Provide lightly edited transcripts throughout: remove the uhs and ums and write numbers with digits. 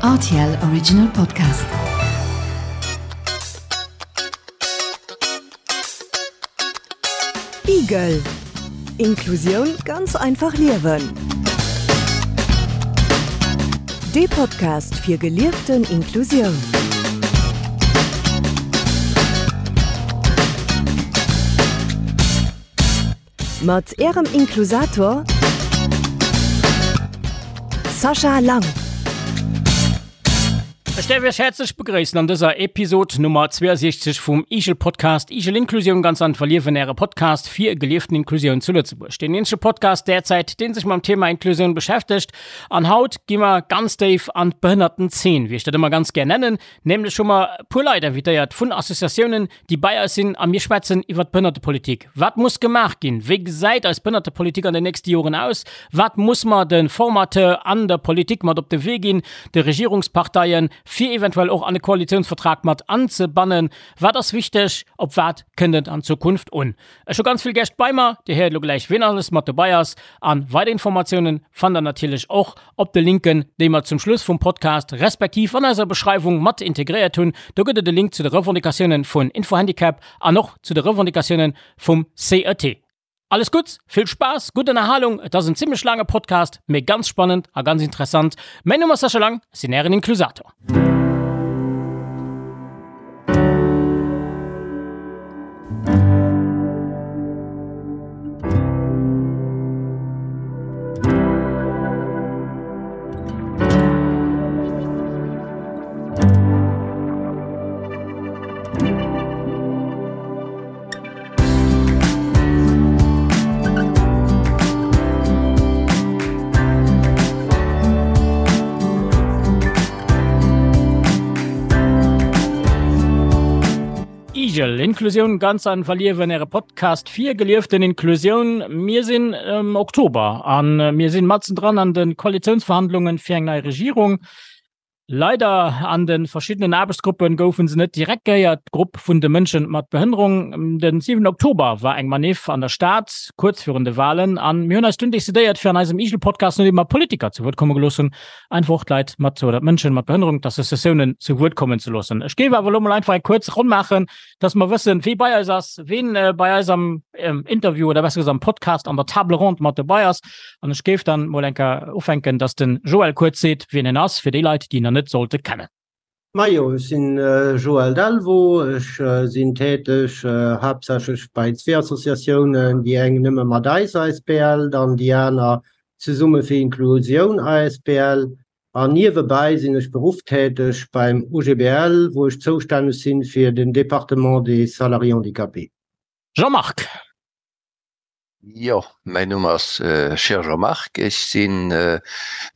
Rtl Original Podcast. Igel Inklusioun ganz einfach liewen. Dee Podcast fir gelieften Inklusioun. Mat Ärem Inklusator Sascha Lang. Ech däerf Iech häerzlech begréissen an dëser Episod Nummer 62 vum Igel Podcast, Igel Inklusioun ganz einfach liewen, Äre Podcast fir gelieften Inklusioun zu Lëtzebuerg. Deen eenzege Podcast derzäit, deen sech mam Thema Inklusioun beschäftegt. An haut gi mer ganz déif an d'Behënnertenzeen, wéi ech dat ëmmer ganz gär nennen. Nämlech hu mer e puer Leit invitéiert vun Associatiounen, déi bei eis sinn a mir schwätzen iwwert d'Behënnertepolitik. Wat muss gemaach ginn? Wéi gesäit eis Behënnertepolitik an den nächste Joren aus? Wat muss mer de Formateur an der Politik mat op de Wee ginn, de Regierungsparteien, fir eventuell och an e Koalitiounsvertrag mat anzebannen? Wat ass wichteg? Op wat kënnt et an Zukunft un? Ech hu ganz vill Gäscht bei mer. Dir héiert elo gläich, wien alles mat dobei ass. A weider Informatiounen fannt der natierlech och op de Linken, déi mer zum Schluss vum Podcast respektiv an eiser Beschreiwung mat integréiert hunn. Do gëtt et e Link zu de Revendicatiounen vun Infohandicap an och zu de Revendicatiounen vum CET. Alles Gutts, vill Spaass, gutt Ënnerhalung. Et ass en zimmlech laange Podcast, mee ganz spannend a ganz interessant. Mäin Numm ass Sascha Lang, ech sinn Ären Inklusator. Igel, Inklusioun ganz einfach liewen, Äre Podcast fir gelieften Inklusioun. Mir sinn am Oktober an mir sinn matzen dran an de Koalitiounsverhandlungen fir eng nei Regierung. Leider an de verschiddenen Aarbechtsgruppen goufen se net direkt gehéiert, d'Grupp vun de Mënschen mat Behënnerung. Den 7 Oktober war eng Maniff an der Stad, kuerz virun de Walen, an mir hunn eis dunn decidéiert fir an eisem Igel-Podcast, nodeem mer Politiker zu Wuert komme gelooss hunn, einfach och d'Leit mat oder d'Mënschen mat Behënnerung, d'Associatiounen zu Wuert kommen ze loossen. Ech géif awer elo mol einfach eng kuerz Ronn maachen, dass mer wëssen, wee bei eis ass, ween bei eis am Interview oder besser gesot am Podcast an der Table ronde mat dobei ass. An ech géif dann mol eng Kéier ufänken, dass den Joël kuerz seet, wien en ass, fir déi Leit, déi en nach net sollte kennen. Majo, ech sinn Joël Delvaux, ech sinn täteg haaptsächlech bei zwee Associatiounen, déi eng Nëmme mat eis asbl, dann déi aner Zesumme fir Inklusioun asbl. An niewebäi sinn ech berufftäteg beim OGBL, wou ech zoustänneg sinn fir den Département des salariés handicapés. Jean-Marc. Jo, mäin Numm ass Scheer Jean-Marc, ech si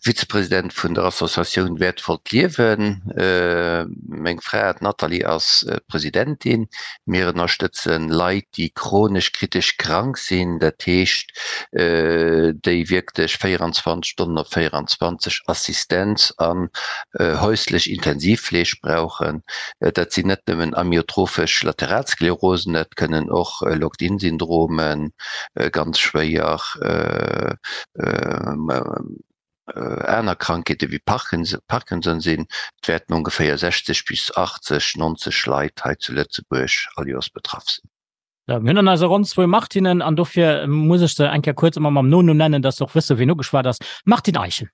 Vizepresident vun der Associatioun Wäertvollt Liewen. Meng Fra, d'Nathalie, ass d'Presidentin. Mir ënnerstëtzen Leit, déi chronesch kritesch krank sinn, dat heescht, déi wierklech 24 Stonnen op 24 Assistenz an häuslech Intensivfleeg brauchen. Dat sinn net nëmmen amyotrophesch Lateralsklerosen, dat kënnen och Locked-in-Syndromen, ganz schwéier aner Krankheete wéi Parkinson sinn. Et wäerten ongeféier 60 bis 80, 90 Leit hei zu Lëtzebuerg all Joers betraff sinn. Mir hunn an eiser Ronn zwou Martinen an dofir muss ech se eng Kéier kuerz ëmmer mam Nonumm nennen, dass se och wësse wien ugeschwat ass. Martine Eischen.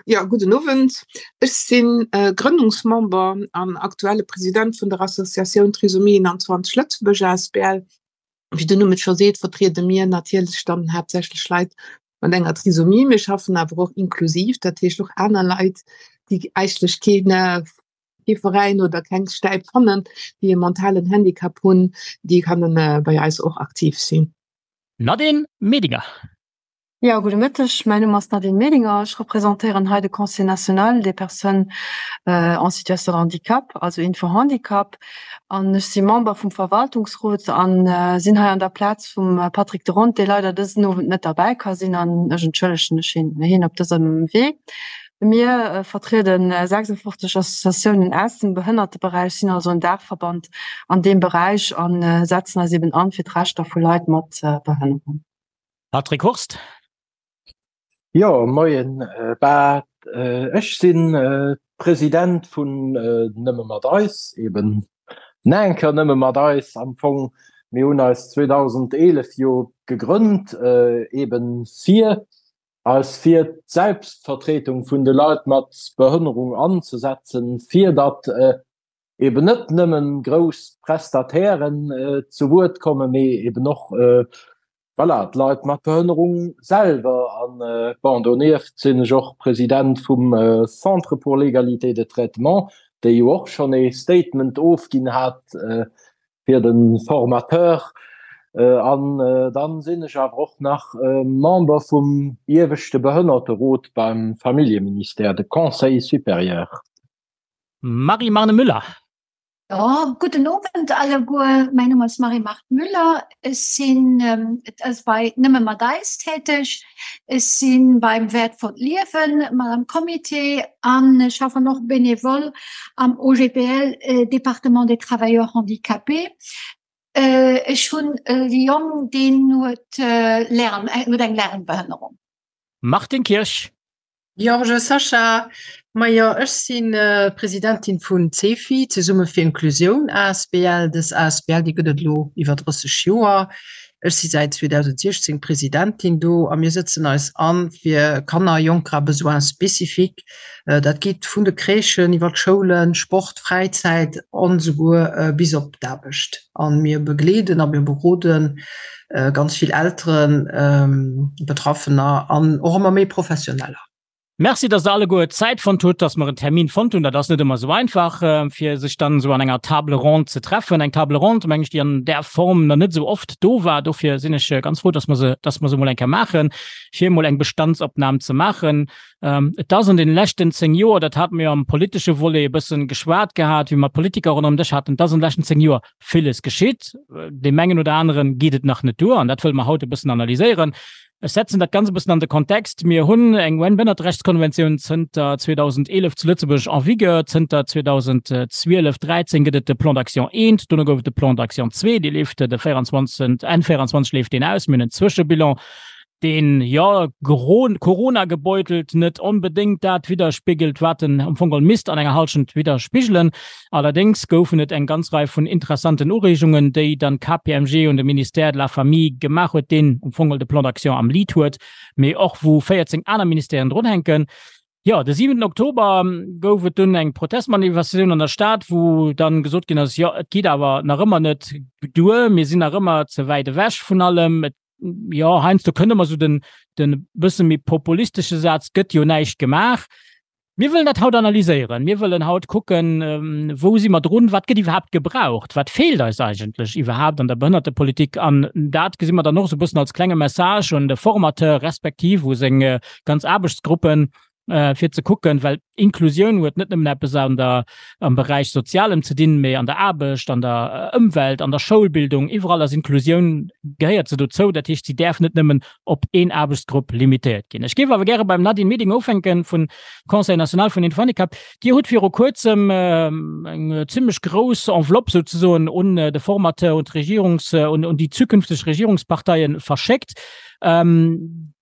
Jo, gudden Owend. Ech si Grënnungsmember an aktuelle President vun der Associatioun Trisomie 21 Lëtzebuerg asbl. Wéi den Numm et scho seet, vertriede mir natierlech dann haaptsächlech Leit mat enger Trisomie. Mir schaffen awer och inklusiv, dat heescht och aner Leit, déi eigentlech keen kee Veräin oder keng Stäip fannen, déi e mentalen Handicap hunn, déi kënnen bei eis och aktiv sinn. Nadine Medinger. Jo, gudde Mëtteg, mäin Numm ass Nadine Medinger, ech representéieren hei de Conseil national des personnes en situation de handicap, also Info-Handicap, an ech si Member vum Verwaltungsrot an sinn hei an der Plaz vum Patrick de Rond, dee leider dësen Owend net derbäi ka sinn, an ech entschëllegen ech hien op dësem Wee. Mir vertriede 56 Associatiounen aus dem Behënnerteberäich, sinn also en Daachverband an deem Beräich a setzen eis eben an fir d'Rechter vu Leit mat Behënnerung. Patrick Hurst. Jo, moien. Bah, ech sinn President vun Nëmme mat eis, eben Nanker Nëmme mat eis am Fong. Mir hunn eis 2011 jo gegrënnt, eben fir eis fir d'Selbstvertretung vun de Leit mat Behënnerung anzesetzen, fir datt eben net nëmmen grouss Prestatairen zu Wuert kommen, mee eben och voilà, d'Leit mat Behënnerung selwer. An bon, donieft sinn ech och President vum Centre pour l'égalité de traitement, dee jo och schonn ee Statement ofginn hat fir de Formateur. An dann sinn ech awer och nach Member vum ieweschte Behënnerterot beim Familljeministère, de Conseil supérieur. Marie-Marne Müller. Jo, gudden Owend alleguer. Mäin Numm ass Marie-Marthe Müller. Ech sinn bei Nëmme mat eis täteg. Ech si beim Wäertvollt Liewen mat am Comité an ech schaffen och bénévole am OGBL Département des Travailleurs Handicapés. Ech hunn e Jong, deen huet Lärm, huet eng Lärmbehënnerung. Martine Kirsch. Georges Sacha, Majo, ech si Presidentin vun CEFI, Zesumme fir Inklusioun asbl. Dës asbl, déi gëtt et elo iwwer 30 Joer. Ech si säit 2016 Presidentin do a mir sëtzen eis an fir Kanner, Jonker à besoins spécifiques. Dat geet vun de Crèchen iwwer d'Schoulen, Sport, Fräizäit an esouguer bis op d'Aarbecht. A mir begleeden a mir beroden ganz vill Elteren, Betraffener an och ëmmer méi Professioneller. Merci, dass Der alleguer Zäit fonnt hutt, dass mer en Termin fonnt hunn. Dat ass net ëmmer esou einfach, fir sech dann esou an enger Table ronde ze treffen. Eng Table ronde, meng ech, déi an där Form nach net esou oft do war. Dofir sinn ech ganz frou, dass mer se, dass mer se emol eng Kéier maachen, fir emol eng Bestandsopnam ze maachen. Et ass an deene leschten 10 Joer, dat hate mer jo am politesche Volet e bëssen geschwat gehat, wéi mer d'Politiker ronderëm Dësch haten, et ass an de leschten 10 Joer villes geschitt. Deem engen oder anere geet et nach net duer an dat wëlle mer haut e bëssen analyséieren. Ech setzen dat Ganzt e bëssen an de Kontext. Mir hunn eng UN-Behënnerterechtskonventioun zënter 2011 zu Lëtzebuerg en vigueur. Zënter 2012, 13 gëtt et de Plan d'action I, dono gouf et de Plan d'action ii, dee leeft de 24, Enn 24 leeft deen aus. Mir hunn en Zwëschebilan, deen, jo, Corona-gebeutelt net onbedéngt dat widderspigelt, wat en am Fong geholl misst an enger Hallschent widderspigelen. Allerdéngs goufen et eng ganz Rei vun interessanten Ureegungen, déi dann d'KPMG un de Ministère de la Famille gemaach huet, deen am Fong geholl de Plan d'action am Lead huet, mee och wou 14 aner Ministèren drunhänken. Jo, de siwenten Oktober gouf et dunn eng Protestmanifestatioun an der Stad, wou dann gesot ginn ass, jo, et geet awer nach ëmmer net duer, mir sinn nach ëmmer ze wäit ewech vun allem, et jo, heiansdo kënnt ëmmer esou den, den bësse méi populistesche Saz, gëtt jo näischt gemaach. Mir wëllen dat haut analyséieren. Mir wëllen haut kucken, wou si mer drun, wat gëtt iwwerhaapt gebraucht, wat feelt eis eigentlech iwwerhaapt an der Behënnertepolitik. An dat gesi mer dann och esou e bëssen als klenge Message un de Formateur respektiv u seng ganz Aarbechtsgruppen, fir ze kucken, well Inklusioun huet net nëmmen eppes an der, am Beräich Sozialem ze dinn, mee an der Aarbecht, an der Ëmwelt, an der Schoulbildung, iwwerall ass Inklusioun, gehéiert se dozou. Dat heescht, si däerf net nëmmen op een Aarbechtsgrupp limitéiert ginn. Ech géif awer gäre beim Nadine Meding ufänken vun Conseil national vun den Handicap. Dir hutt viru kuerzem eng zimmlech grouss Enveloppe souzesoen un de Formateur, un d'Regierungs-, un déi zukünfteg Regierungsparteie verschéckt.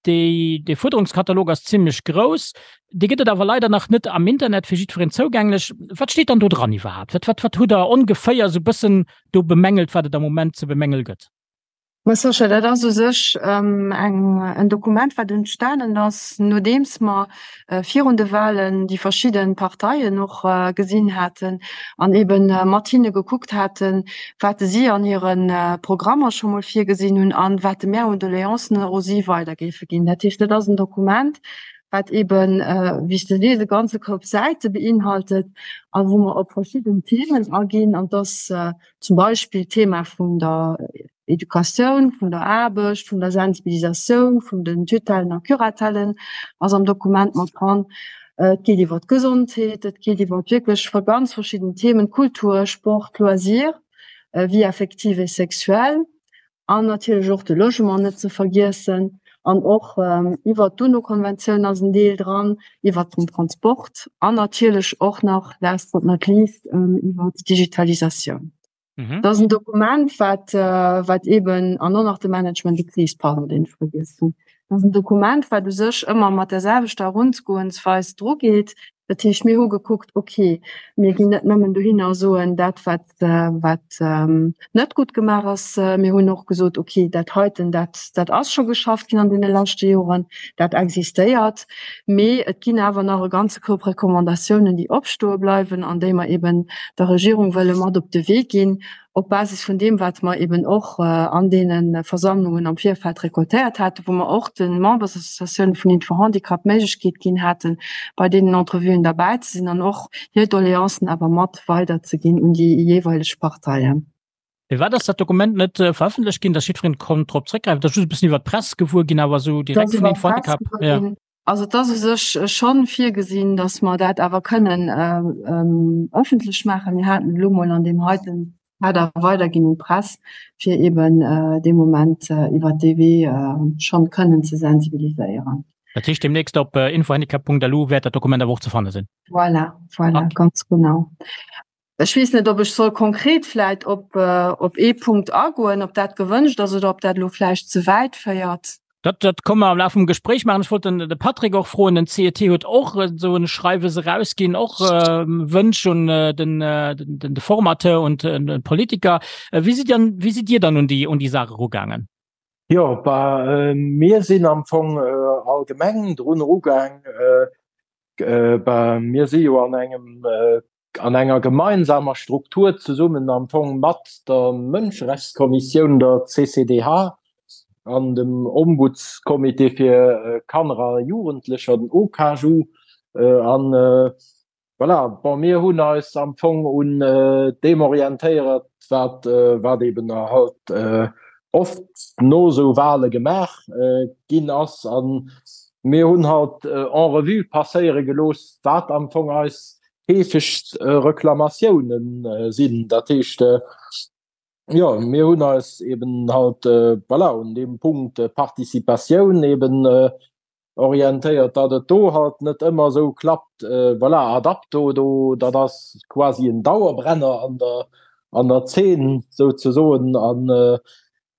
Dee Fuerderungskatalog ass zimmlech grouss. Dee gëtt et awer leider nach net am Internet fir jiddwereen zougänglech. Wat steet dann do dran iwwerhaapt? Wat, wat, wat hutt Der ongeféier esou bëssen do bemängelt, wat et am Moment ze bemängele gëtt? Ma Sascha, dat ass u sech eng, en Dokument, wat entstanen ass, nodeems mer virun de Wahlen déi verschidde Parteien och gesinn haten an eebe mat hinne gekuckt haten, wat si an hire Programmer scho mol virgesinn hunn an wat mär un Doleancen u si weider géife ginn. Dat heescht, dat ass en Dokument, wat eeben, wéi s de sees, e ganze Koup Säite beinhaltet a wou mer op verschidden Themen aginn. An dass zum Beispill d'Thema vun der Educatioun, vun der Aarbecht, vun der Sensibilisatioun, vun den Tutellen a Curatellen ass am Dokument mat dran. Et geet iwwer d'Gesondheet, et geet iwwer wierklech ganz verschidden Themen, Kultur, Sport, Loisir, Vie affective et sexuelle an natierlech och de Logement net ze vergiessen an och iwwer d'UNO-Konventioun ass en Deel dran, iwwer den Transport an natierlech och nach last but not least iwwer d'Digitalisatioun. Mhm. Dat ass en Dokument, wat, äh, wat eben an och nach de Management de crise, pardon, deen ech vergiess hunn. Dat ass en Dokument, wat u sech ëmmer mat der selwechter Erungoensweis drugeet. Dat heescht, mir hu gekuckt, okay, mir ginn net nëmmen dohinner a soen, dat wat, wat net gutt gemaach ass. Mir hunn och gesot, okay, dat heiten, dat, dat ass scho geschafft ginn an deene leschte Joren, dat existéiert. Mee et ginn awer nach e ganze Koup Recommandatiounen, déi opstoe bleiwen an déi mer eben der Regierung wëlle mat op de Wee ginn, op Basis vun deem, wat mer eben och an deene Versammlungen am Virfeld récoltéiert haten, wou mer och de Membersassociatiounen vun Info-Handicap d'Méiglechkeet ginn haten, bei deenen Entrevuen derbäi ze sinn an och hir Doleancen awer mat weiderzeginn un déi jeeweileg Parteien. Firwat ass dat Dokument net verëffentlecht ginn, dass jiddwereen konnt drop zréckgräifen? Et ass just e bëssen iwwer d'Press gewuer ginn, awer esou direkt vun Info-Handicap, jo. Also et ass u sech schonn virgesinn, datt mer dat awer kënnen ëffentlech maachen. Mir haten et elo mol an deem heiten Kader weiderginn un d'Press, fir eeben dee Moment iwwert dee Wee schonn kënnen ze sensibiliséieren. Dat heescht, deemnächst op infohandicap.lu wäert dat Dokument awer och ze fanne sinn? Voilà, voilà, ganz genau. Ech weess net, ob ech soll konkret vläit op, op ee Punkt agoen, ob dat gewënscht ass oder ob dat elo vläicht ze wäit féiert. Dat, dat komme mer am Laf vum Gespréich maachen. Ech wollt den, de Patrick och froen, den CET huet och esou e Schreiwes erausginn, och Wënsch un den, den, de Formateur und den Politiker. Wéi sidd Dir, wéi sidd Dir dann un déi, un déi Saach erugaangen? Jo, bah, mir sinn am Fong allgemeng drun erugaang. Bah, mir si jo an engem an enger gemeinsamer Struktur zesummen am Fong mat der Mënscherechtskommissioun, der CCDH, an dem Ombudscomité fir Kanner a Jugendlecher, den OKAJU. An voilà, bon, mir hunn eis am Fong un deem orientéiert, wat, wat eben halt oft no esou Wahle gemaach ginn ass. A mir hunn halt en revue passéiere gelooss, wat am Fong eis heefegst Reklamatiounen sinn. Dat heescht, jo, mir hunn eis eben halt, voilà, un deem Punkt Participatioun eben orientéiert, datt et do halt net ëmmer esou klappt. Voilà, ad apto do, dat ass quasi en Dauerbrenner an der, an der Zeen souzesoen. An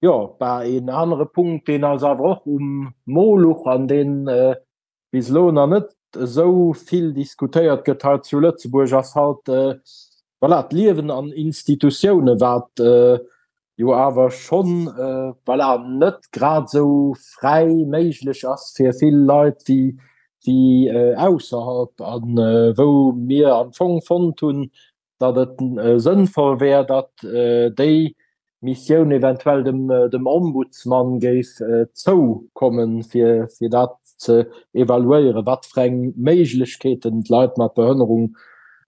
jo, bah, een anere Punkt, deen eis awer och um Mo luch an deen bis elo nach net esou vill diskutéiert gëtt hei zu Lëtzebuerg, ass halt, voilà, d'Liewen an Institutiounen, wat jo awer schonn, voilà, net grad esou fräi méiglech ass fir vill Leit wéi, wéi ausserhalb, a wou mir am Fong fonnt hunn, datt et sënnvoll wär, datt déi Missioun eventuell dem, dem Ombudsman géif zoukommen, fir, fir dat ze evaluéieren, wat fir eng Méiglechkeeten d'Leit mat Behënnerung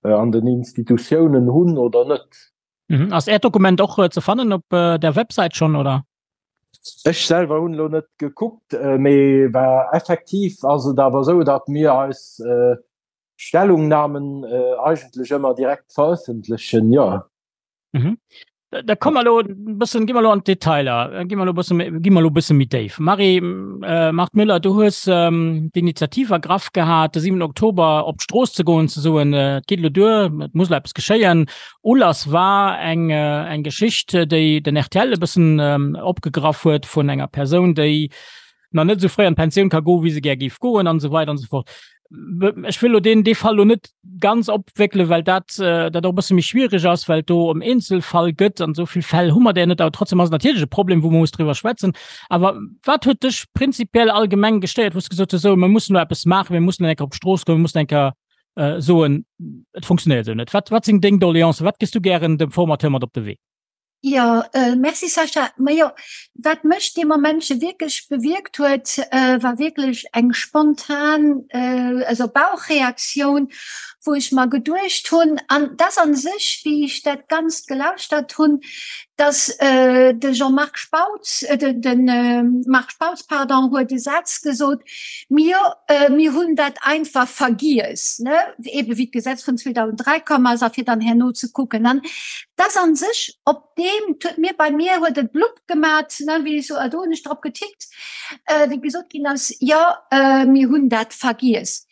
an den Institutiounen hunn oder net. Mhm. Ass Äert Dokument och ze fannen op der Websäit schonn, oder? Ech selwer hunn elo net gekuckt, mee war effektiv ass et awer esou, datt mir eis Stellungnahmen eigentlech ëmmer direkt verëffentlechen, jo. Mhm. Da komme mer elo e bëssen, gi mer elo an d'Detailer, gi mer elo e bësse méi, gi mer elo e bësse méi déif. Marie äh, Marthe Müller, du hues ähm, d'Initiativ ergraff gehat, de 7 Oktober op d'Strooss ze goen, ze soen, äh, et geet elo duer, et muss elo eppes geschéien. Ulass war eng, äh, eng Geschicht, déi den rtl e bëssen ähm, opgegraff huet vun enger Persoun, déi nach net esou fréi an d'Pensioun ka goen, wéi se gär géif goen an esou weider an esou fort. Ech wëll elo deen, dee Fall elo net ganz opwéckelen, well dat, dat och e bësse méi schwierig ass, well et do ëm Eenzelfall gëtt an esou vill Fäll hu mer där net. Awer trotzdem ass et natierlech e Problem, wou mer muss driwwer schwätzen. Awer wat huet dech prinzipiell allgemeng gestéiert, wou s de gesot hues, esou, mir mussen elo eppes maachen, mir mussen eng Kéier op d'Strooss goen, mir mussen eng Kéier soen, et funktionéiert esou net? Wat, wat sinn deng Doleancen? Wat gëss du gären dem Formateur mat op de Wee? Jo, merci Sascha. Majo, wat mech dee Momentche wierklech bewierkt huet, war wierklech eng spontan, also Bauchreaktioun, wou ech mer geduecht hunn, an dass a sech, wéi ech dat Ganzt gelauschtert hunn, dass de Jean-Marc Spautz, de Marc Spautz, pardon, huet e Saz gesot, Mir, mir hunn dat einfach vergiess, ne, ebe wéi d'Gesetz vun 2003 komm ass, a fir dann herno ze kucken. An dass a sech op deem, et huet mir, bei mir huet et blupp gemat, ne, wéi ech so, do hunn ech drop getickt, wéi gesot ginn ass, jo, mir hunn dat vergiess.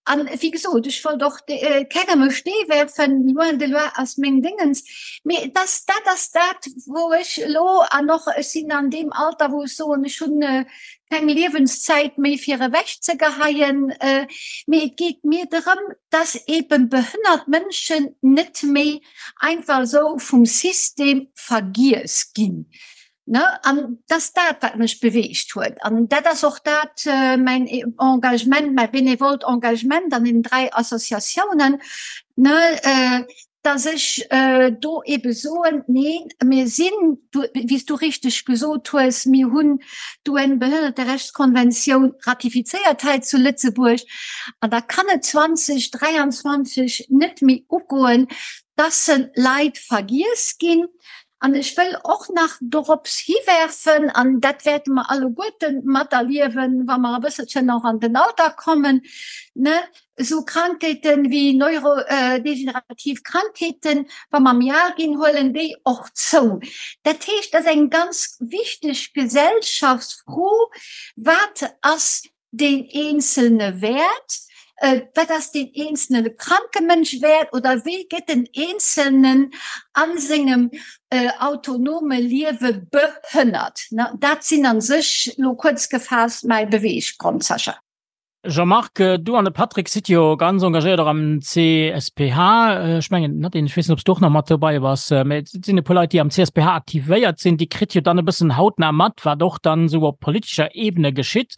An wéi gesot, ech wollt och kengem e Stee werfen, loin de là ass meng Déngens, mee et ass, dat ass dat, wou ech elo, an och ech sinn an deem Alter, wou ech soen, ech hunn keng Liewenszäit méi fir ewechzegeheien, mee et geet mir drëm, dass eebe behënnert Mënschen net méi einfach esou vum System vergiess ginn. Ne? An dat ass dat, wat mech beweegt huet. An dat ass och dat mäin Engagement, mäi benevolt Engagement an den 3 Associatiounen, ne, dass ech do ebe soen, neen, mir sinn, wéi s du richteg gesot hues, mir hunn d'UN-Behënnerterechtskonventioun ratifizéiert hei zu Lëtzebuerg. An da kann et 2023 net méi ugoen, dass Leit vergiess ginn. An ech wëll och nach dorops hiwerfen, an dat wäerte mer alleguerte materliewen, wa mer e bësselchen och an den Alter kommen, ne, esou Krankheete wéi neurodegenerativ Krankheeten, wa mer méi al ginn, huelen déi och zou. Dat heescht, dat ass eng ganz wichteg Gesellschaftsfro, Wat ass deen Eenzelne wäert, wat ass deen eenzelne kranke Mënsch wäert oder wéi gëtt den Eenzelnen a sengem autonome Liewe behënnert. Dat sinn a sech elo kuerz gefaasst mäi Beweeggrond, Sascha. Jean-Marc, du an de Patrick sidd jo ganz engagéiert och am CSPH. Ech mengen, Nadine, ech weess net, ob s du och nach mat dobäi bass, mä et sinn e puer Leit, déi am CSPH aktivéiert sinn, déi kritt jo dann e bëssen hautnah mat, wat och dann esou op politescher Ebene geschitt.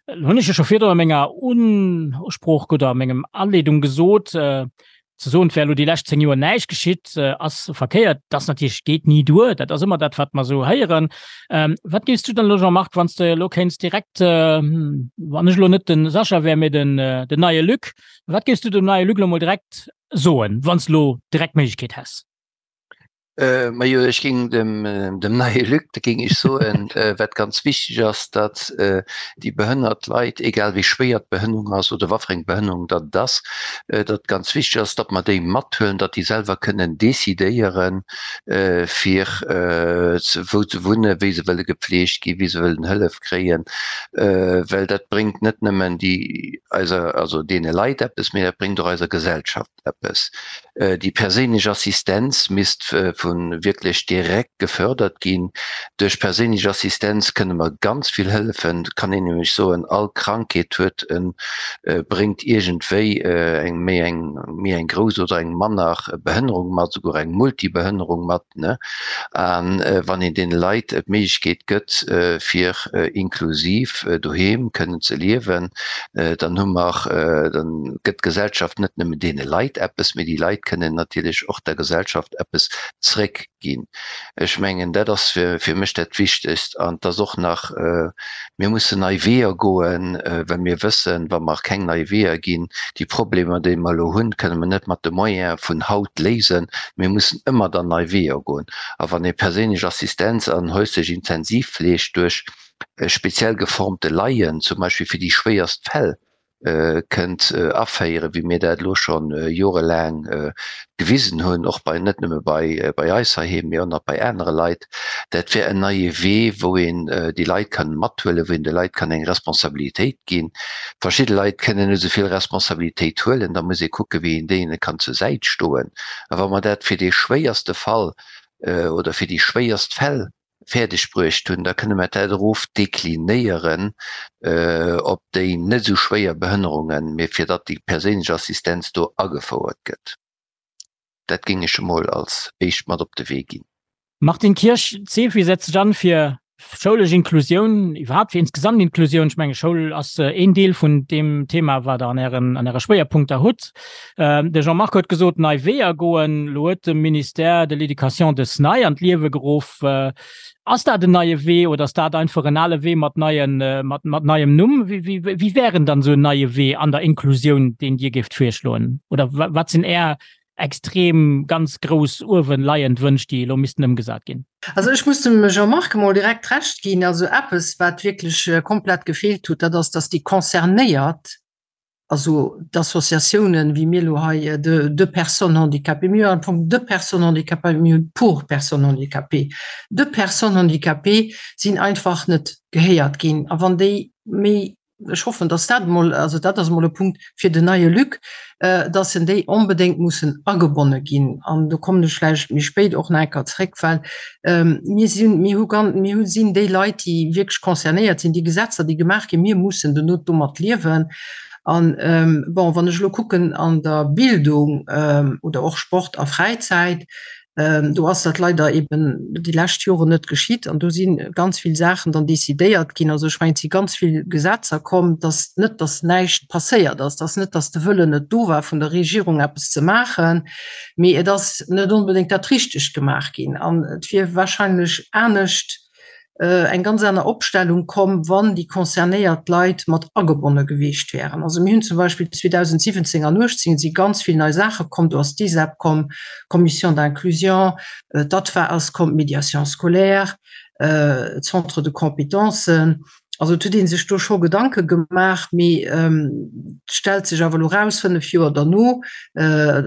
Lo hunn ech jo scho virdru a menger Usprooch oder a mengem Aleedung gesot, ze soen, et wär elo déi lescht 10 Joer näischt geschitt, ass verkéiert. Dat ass natierlech, geet ni duer. Dat ass ëmmer dat, wat mer esou héieren. Wat géifs du dann elo, Jean-Marc, wann s de elo kéints direkt, wann ech elo net de Sascha wär, mee den neie Luc, wat géifs du dem neie Luc elo mol direkt soen, wann s de elo direkt d'Méiglechkeet häss? Majo, ech géing dem dem neie Luc, da géing ech soen, wat ganz wichteg ass, datt déi behënnert Leit, egal wéi schwéier d'Behënnerung ass oder wat fir eng Behënnerung datt et ass, datt ganz wichteg ass, datt mer déi mathuelen, datt déi selwer kënnen decidéieren, fir wou se wunnen, wéi se wëlle gepfleegt ginn, wéi se wëllen Hëllef kréien, well dat bréngt net nëmmen déi eiser, also deene Leit eppes, mee dat bréngt och eiser Gesellschaft eppes. Déi perséinlech Assistenz misst vu wierklech direkt gefördert ginn. Duerch perséinlech Assistenz kënne mer ganz vill hëllefen. Et kann een nämlech soen, all Krankheet huet e bréngt iergendwéi eng méi eng méi eng grouss oder eng manner Behënnerung mat, esouguer eng Multibehënnerung mat. Ne? A wann een deene Leit d'Méiglechkeet gëtt, fir inklusiv doheem kënnen ze liewen, dann hu mer, dann gëtt d'Gesellschaft net nëmmen deene Leit eppes, mee déi Leit kënnen natierlech och der Gesellschaft eppes zréckginn. Ech mengen, dat ass fir mech dat Wichtegst. An et ass och nach, mir mussen nei Weeër goen, well mir wëssen, wa mer keng nei Weeër ginn, déi Problemer, déi mer elo hunn, kënne mer net mat de Moyene vun haut léisen. Mir mussen ëmmer dann nei Weeër goen. A wann ee perséinlech Assistenz an häuslech Intensivfleeg duerch speziell geformte Laien, zum Beispill fir déi schwéierst Fäll, kënnt aféieren, wéi mir dat elo scho jorelaang gewisen hunn, och bei, net nëmme bei, bei eis heiheem, mee och nach bei anere Leit, dat wär en neie Wee, wou een déi Leit kann mathuelen, wou een de Leit kann eng Responsabilitéit ginn. Verschidde Leit kënnen net esou vill Responsabilitéit huelen, da muss ee kucken, wéi een deene kann zur Säit stoen. A wa mer dat fir dee schwéierste Fall oder fir déi schwéierst Fäll fäerdeg bruecht hunn, da kënne mer dat erof deklinéieren op déi net esou schwéier Behënnerungen, mee fir datt déi perséinlech Assistenz do agefouert gëtt. Dat géing ech emol als éischt mat op de Wee ginn. Martine Kirsch, D'CEFI setzt sech an fir schoulesch Inklusioun, iwwerhaapt fir insgesamt Inklusioun. Ech menge Schoul ass een Deel vun deem Thema, wat Der an Ären, an Äre Schwéierpunkter hutt. De Jean-Marc huet gesot, nei Weeër goen. Elo huet de Ministère de l'Éducation dës nei an d'Liewe geruff. Ass dat en neie Wee oder ass dat einfach en ale Wee mat neien, mat, mat neiem Numm? Wéi, wéi, wéi wär en dann esou en neie Wee an der Inklusioun, deen Dir géift virschloen? Oder wat sinn Är extrem ganz grouss uewen leiend Wënsch, déi elo missten ëmgesat ginn? Also ech muss dem Jean-Marc emol direkt Recht ginn. Also eppes, wat wierklech komplett gefeelt huet, dat ass, dass déi Concernéiert, also d'Associatiounen, wéi mir elo hei, de, de personnes handicapées, mir hunn am Fong de personnes handicapées, mir hunn pour personnes handicapées, de personnes handicapées sinn einfach net gehéiert ginn. A wann déi méi. Ech hoffen, dass dat emol, also dat ass emol e Punkt fir den neie Luc, dass en déi onbedéngt mussen agebonne ginn. An do kommen ech vläicht méi spéit och nach eng Kéier zréck, well mir sinn, mir hu gan, mir hu sinn déi Leit, déi wierklech concernéiert sinn, déi Gesetzer, déi gemaach ginn, mir mussen dono domat liewen. An, bon, wann ech elo kucken an der Bildung oder och Sport a Fräizäit, Do ass dat leider eben déi lescht Joren net geschitt an do si ganz vill Saachen dann decidéiert ginn. Also ech mengen, et si ganz vill Gesetzer komm, dass net, dass näischt passéiert ass, dass net, dass de Wëllen net do war vun der Regierung eppes ze maachen, mee et ass net onbedéngt dat Richtegt gemaach ginn an et wier wahrscheinlech anescht eng ganz aner Opstellung komm, wann déi concernéiert Leit mat agebonne gewiescht wären. Also mir hunn zum Beispill 2017 an 18 si ganz vill nei Saache komm, do ass d'ISEP komm, d'Commission d'inclusion, d'ADVA ass komm, d'Médiation scolaire, d'Centres de compétences. Also et huet ee sech do scho Gedanke gemaach, mee et stellt sech awer elo raus, fënnf Joer derno,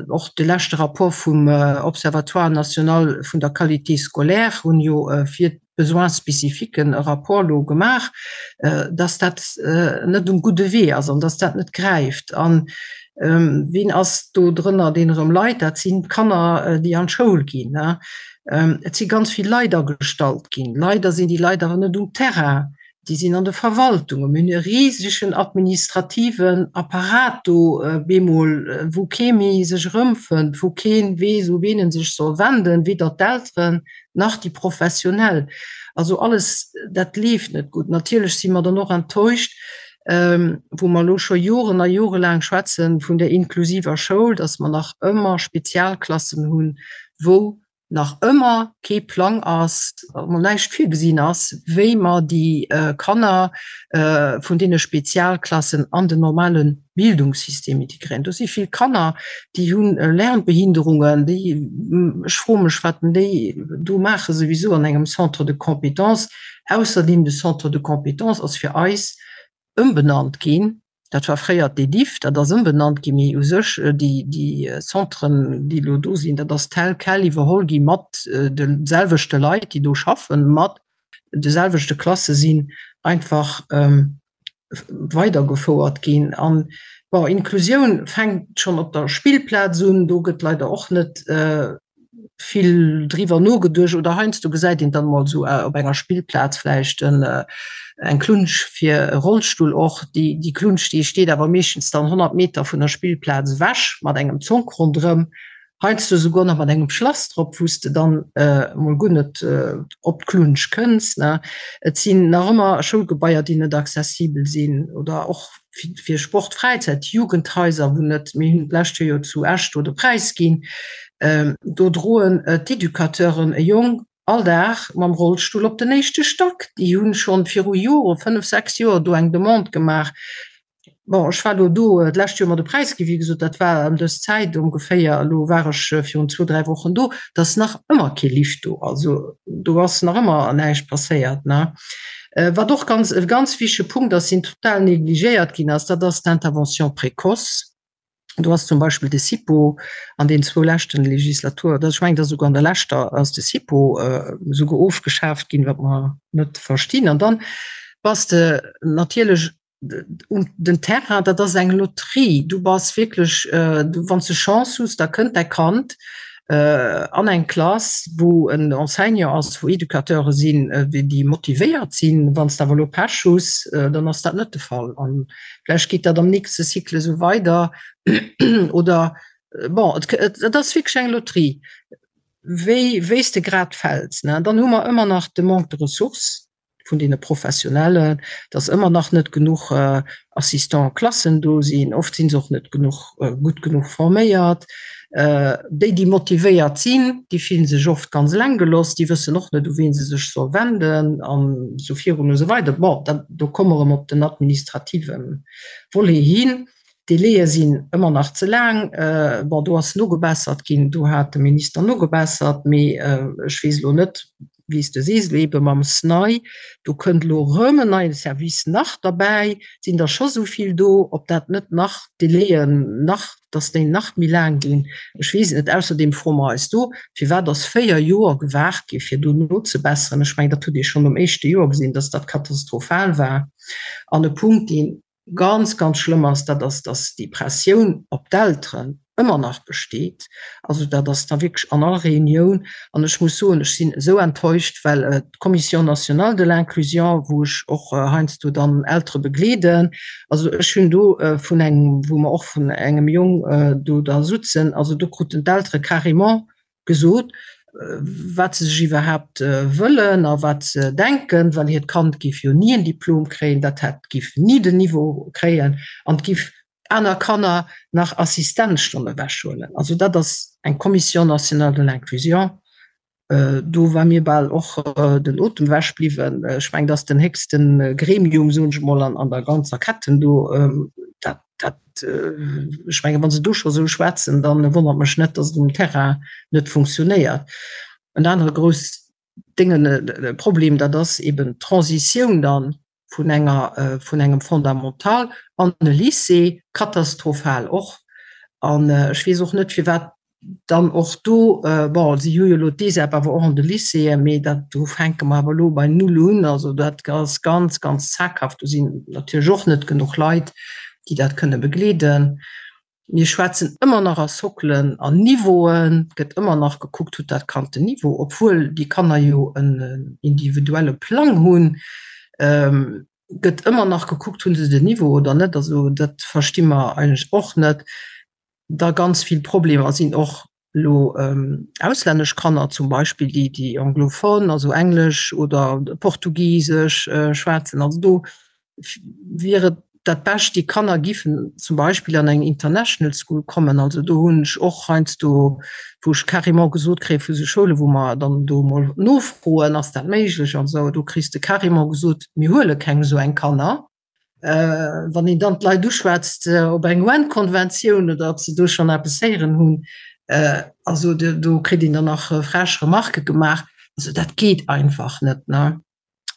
och de leschte Rapport vum Observatoire national vun der Qualité scolaire hunn jo fir d'Besoins spécifiques e Rapport elo gemaach, dass dat net um gudde Wee ass an dass dat net gräift. An wien ass do drënner, deen erëm leit? Dat sinn d'Kanner, déi an d'Schoul ginn. Et si ganz vill Leit agestallt ginn. Leider sinn déi Leit awer net um Terrain, déi sinn an de Verwaltungen. Mir hunn e risegen administrativen Apparat do bemol, wou kee méi sech erëmfënnt, wou kee weess, u wien e sech soll wenden, weder d'Elteren nach déi Professionell. Also alles dat leeft net gutt. Natierlech si mer dann och enttäuscht, wou mer elo scho Joren a jorelaang schwätze vun der inklusiver Schoul, dass mer nach ëmmer Spezialklassen hunn, wou nach ëmmer kee Plang ass, mol näischt virgesinn ass, wéi mer déi Kanner vun deene Spezialklassen an den normale Bildungssystem integréieren. Do si vill Kanner, déi hu Lernbehinderungen, déi, ech froe mech, wat déi do maache souwisou an engem Centre de compétences. Ausserdeem, de Centre de compétences ass fir eis ëmbenannt ginn, Dat war fréier d'EDIFF, dat ass ëmbenannt ginn, mee u sech déi, déi Centren, déi elo do sinn, dat ass tel quel iwwerholl gi mat de selwechte Leit, déi do schaffen, mat de selwechte Klasse sinn einfach weidergefouert ginn. An, bon, Inklusioun fänkt schonn op der Spillplaz un, do gëtt leider och net vill driwwer nogeduecht oder heiansdo gesäit een dann mol sou op enger Spillplaz vläicht en eng Klunsch fir e Rollstull och. Déi déi Klunsch déi steet awer meeschtens dann 100 Meter vun der Spillplaz ewech mat engem Zonk ronderëm, heiansdo souguer nach mat engem Schlass drop, wou s de dann mol guer net op d'Klunsch kënns ne. Et sinn nach ëmmer Schoulgebaier déi net accessibel sinn oder och fir Sport, Fräizäit, Jugendhaiser, wou net, mir hunn d'lescht Joer jo zu Esch do de Präis ginn, do droen d'Educateuren e Jong all Dag mam Rollstull op den éischte Stack. Déi hu schonn viru Joren, fënnf, sechs Joer, do eng Demande gemaach. Bon, ech war elo do d'lescht Joer mat de Präis ginn, wéi gesot, dat war ëm dës Zäit ongeféier, elo war ech virun zwou, dräi Wochen do, et ass nach ëmmer kee Lift do, also do ass nach ëmmer näischt passéiert, ne. Wat och ganz, e ganz wichtige Punkt ass, deen total negligéiert ginn ass, dat ass d'Intervention précoce. Do ass zum Beispill de SIPO an den zwou leschten Legislatur, ech mengen, et ass esouguer an der leschter, ass de SIPO esouguer ofgeschaaft ginn, wat mer net verstinn. An dann bass de natierlech um den Terrain, dat ass eng Loterie. Du bass wierklech, wann s de Chance hues, da kënnt däi Kand an eng Klass, wou en Enseignant ass, wou Educateure sinn, déi motivéiert sinn. Wann s de awer elo Pech hues, dann ass dat net de Fall. An vläicht geet dat am nächste Cycle esou weider oder bon, et ass wierklech eng Loterie, wéi wéi s de grad fäls. Dann hu mer ëmmer nach de Manque de ressources. vun deene Professionellen, dass ëmmer nach net genuch Assistant-Klassen do sinn. Oft si se och net genuch, gutt genuch forméiert. Déi, déi motivéiert sinn, déi fillen sech oft ganz eleng gelooss, déi wëssen och net, u wien se sech soll wenden an esou virun esou weider. Bon, dat, do komme mer erëm op den administrative Volet hin. D'Délaie sinn ëmmer nach ze laang. Bon, do ass nogebessert ginn, do hat de Minister nogebessert, mee ech weess elo net, wéi s de sees, elo eebe mam SNAI, do kënnt elo erëm en neie Service nach derbäi, et sinn der scho sou vill do, ob dat net nach d'Délaien nach, dass déi nach méi laang ginn, ech weess et net. Ausserdeem froe mer eis do, firwat ass 4 Joer gewaart gi fir do nozebesseren? Ech mengen, dat huet ee schonn nom éischte Joer gesinn, dass dat katastrophal war. An e Punkt, deen. ganz, ganz schlëmm ass, dat ass, dass déi Pressioun op d'Elteren ëmmer nach besteet. Also dat ass da wierklech an all Reunioun. An ech muss soen, ech sinn esou enttäuscht, well d'Commission nationale de l'inclusion, wou ech och heiansdo dann Eltere begleeden, also ech hunn do vun engem, wou mer och vun engem Jong do da sutzen, also do kruten d'Eltere carrément gesot, wat se sech iwwerhaapt wëllen a wat se denken, well hiert Kand géif jo ni en Diplom kréien, dat hätt géif ni den Niveau kréien an et géif aner Kanner nach Assistenzstonne ewechhuelen. Also dat ass eng Commission nationale de l'inclusion. Do war mir bal och den Otem ewech bliwwen. Ech mengen, dat ass den héchste Gremium, soen ech emol, an der ganzer Ketten do. Dat Dat, ech mengen, wa se do scho sou schwätzen, da wonnert mech net, datt et um Terrain net funktionéiert. En anere grouss Déngen, Problem, dat ass eben d'Transitioun dann vun enger, vun engem Fondamental an e Lycée, katastrophal och. An ech weess och net, firwat Dann och do, bon, si hu jo elo d'ESEP awer och an de Lycéeën, mee dat, do fänke mer awer elo bei null un. Also dat ass ganz, ganz zaghaft. Do sinn natierlech och net genuch Leit, déi dat kënne begleeden. Mir schwätzen ëmmer nach a Sockelen an Niveauen. Et gëtt ëmmer nach gekuckt, huet dat Kand den Niveau, obwuel déi Kanner jo en individuelle Plang hunn. Gëtt ëmmer nach gekuckt, hu se den Niveau oder net. Also dat versti mer eigentlech och net. da ganz vill Problemer sinn och lo auslännesch Kanner zum Beispill, déi déi anglophone, also englesch oder portugisesch schwätzen. Also do wier et dat Bescht, déi Kanner giffen zum Beispill an eng International School kommen. Also do hunn ech och heiansdo, wou ech carrément gesot kréie vu sou Schoule wou mer dann do emol nofroen, ass dat méiglech an esou, do kriss de carrément gesot, mir huele keng esou eng Kanner. Wann een dann d'Leit uschwätzt op eng UN-Konventioun oder ob se do schonn eppes héieren hunn, also do kritt een dann nach frech Remarquë gemaach. Also dat geet einfach net, ne?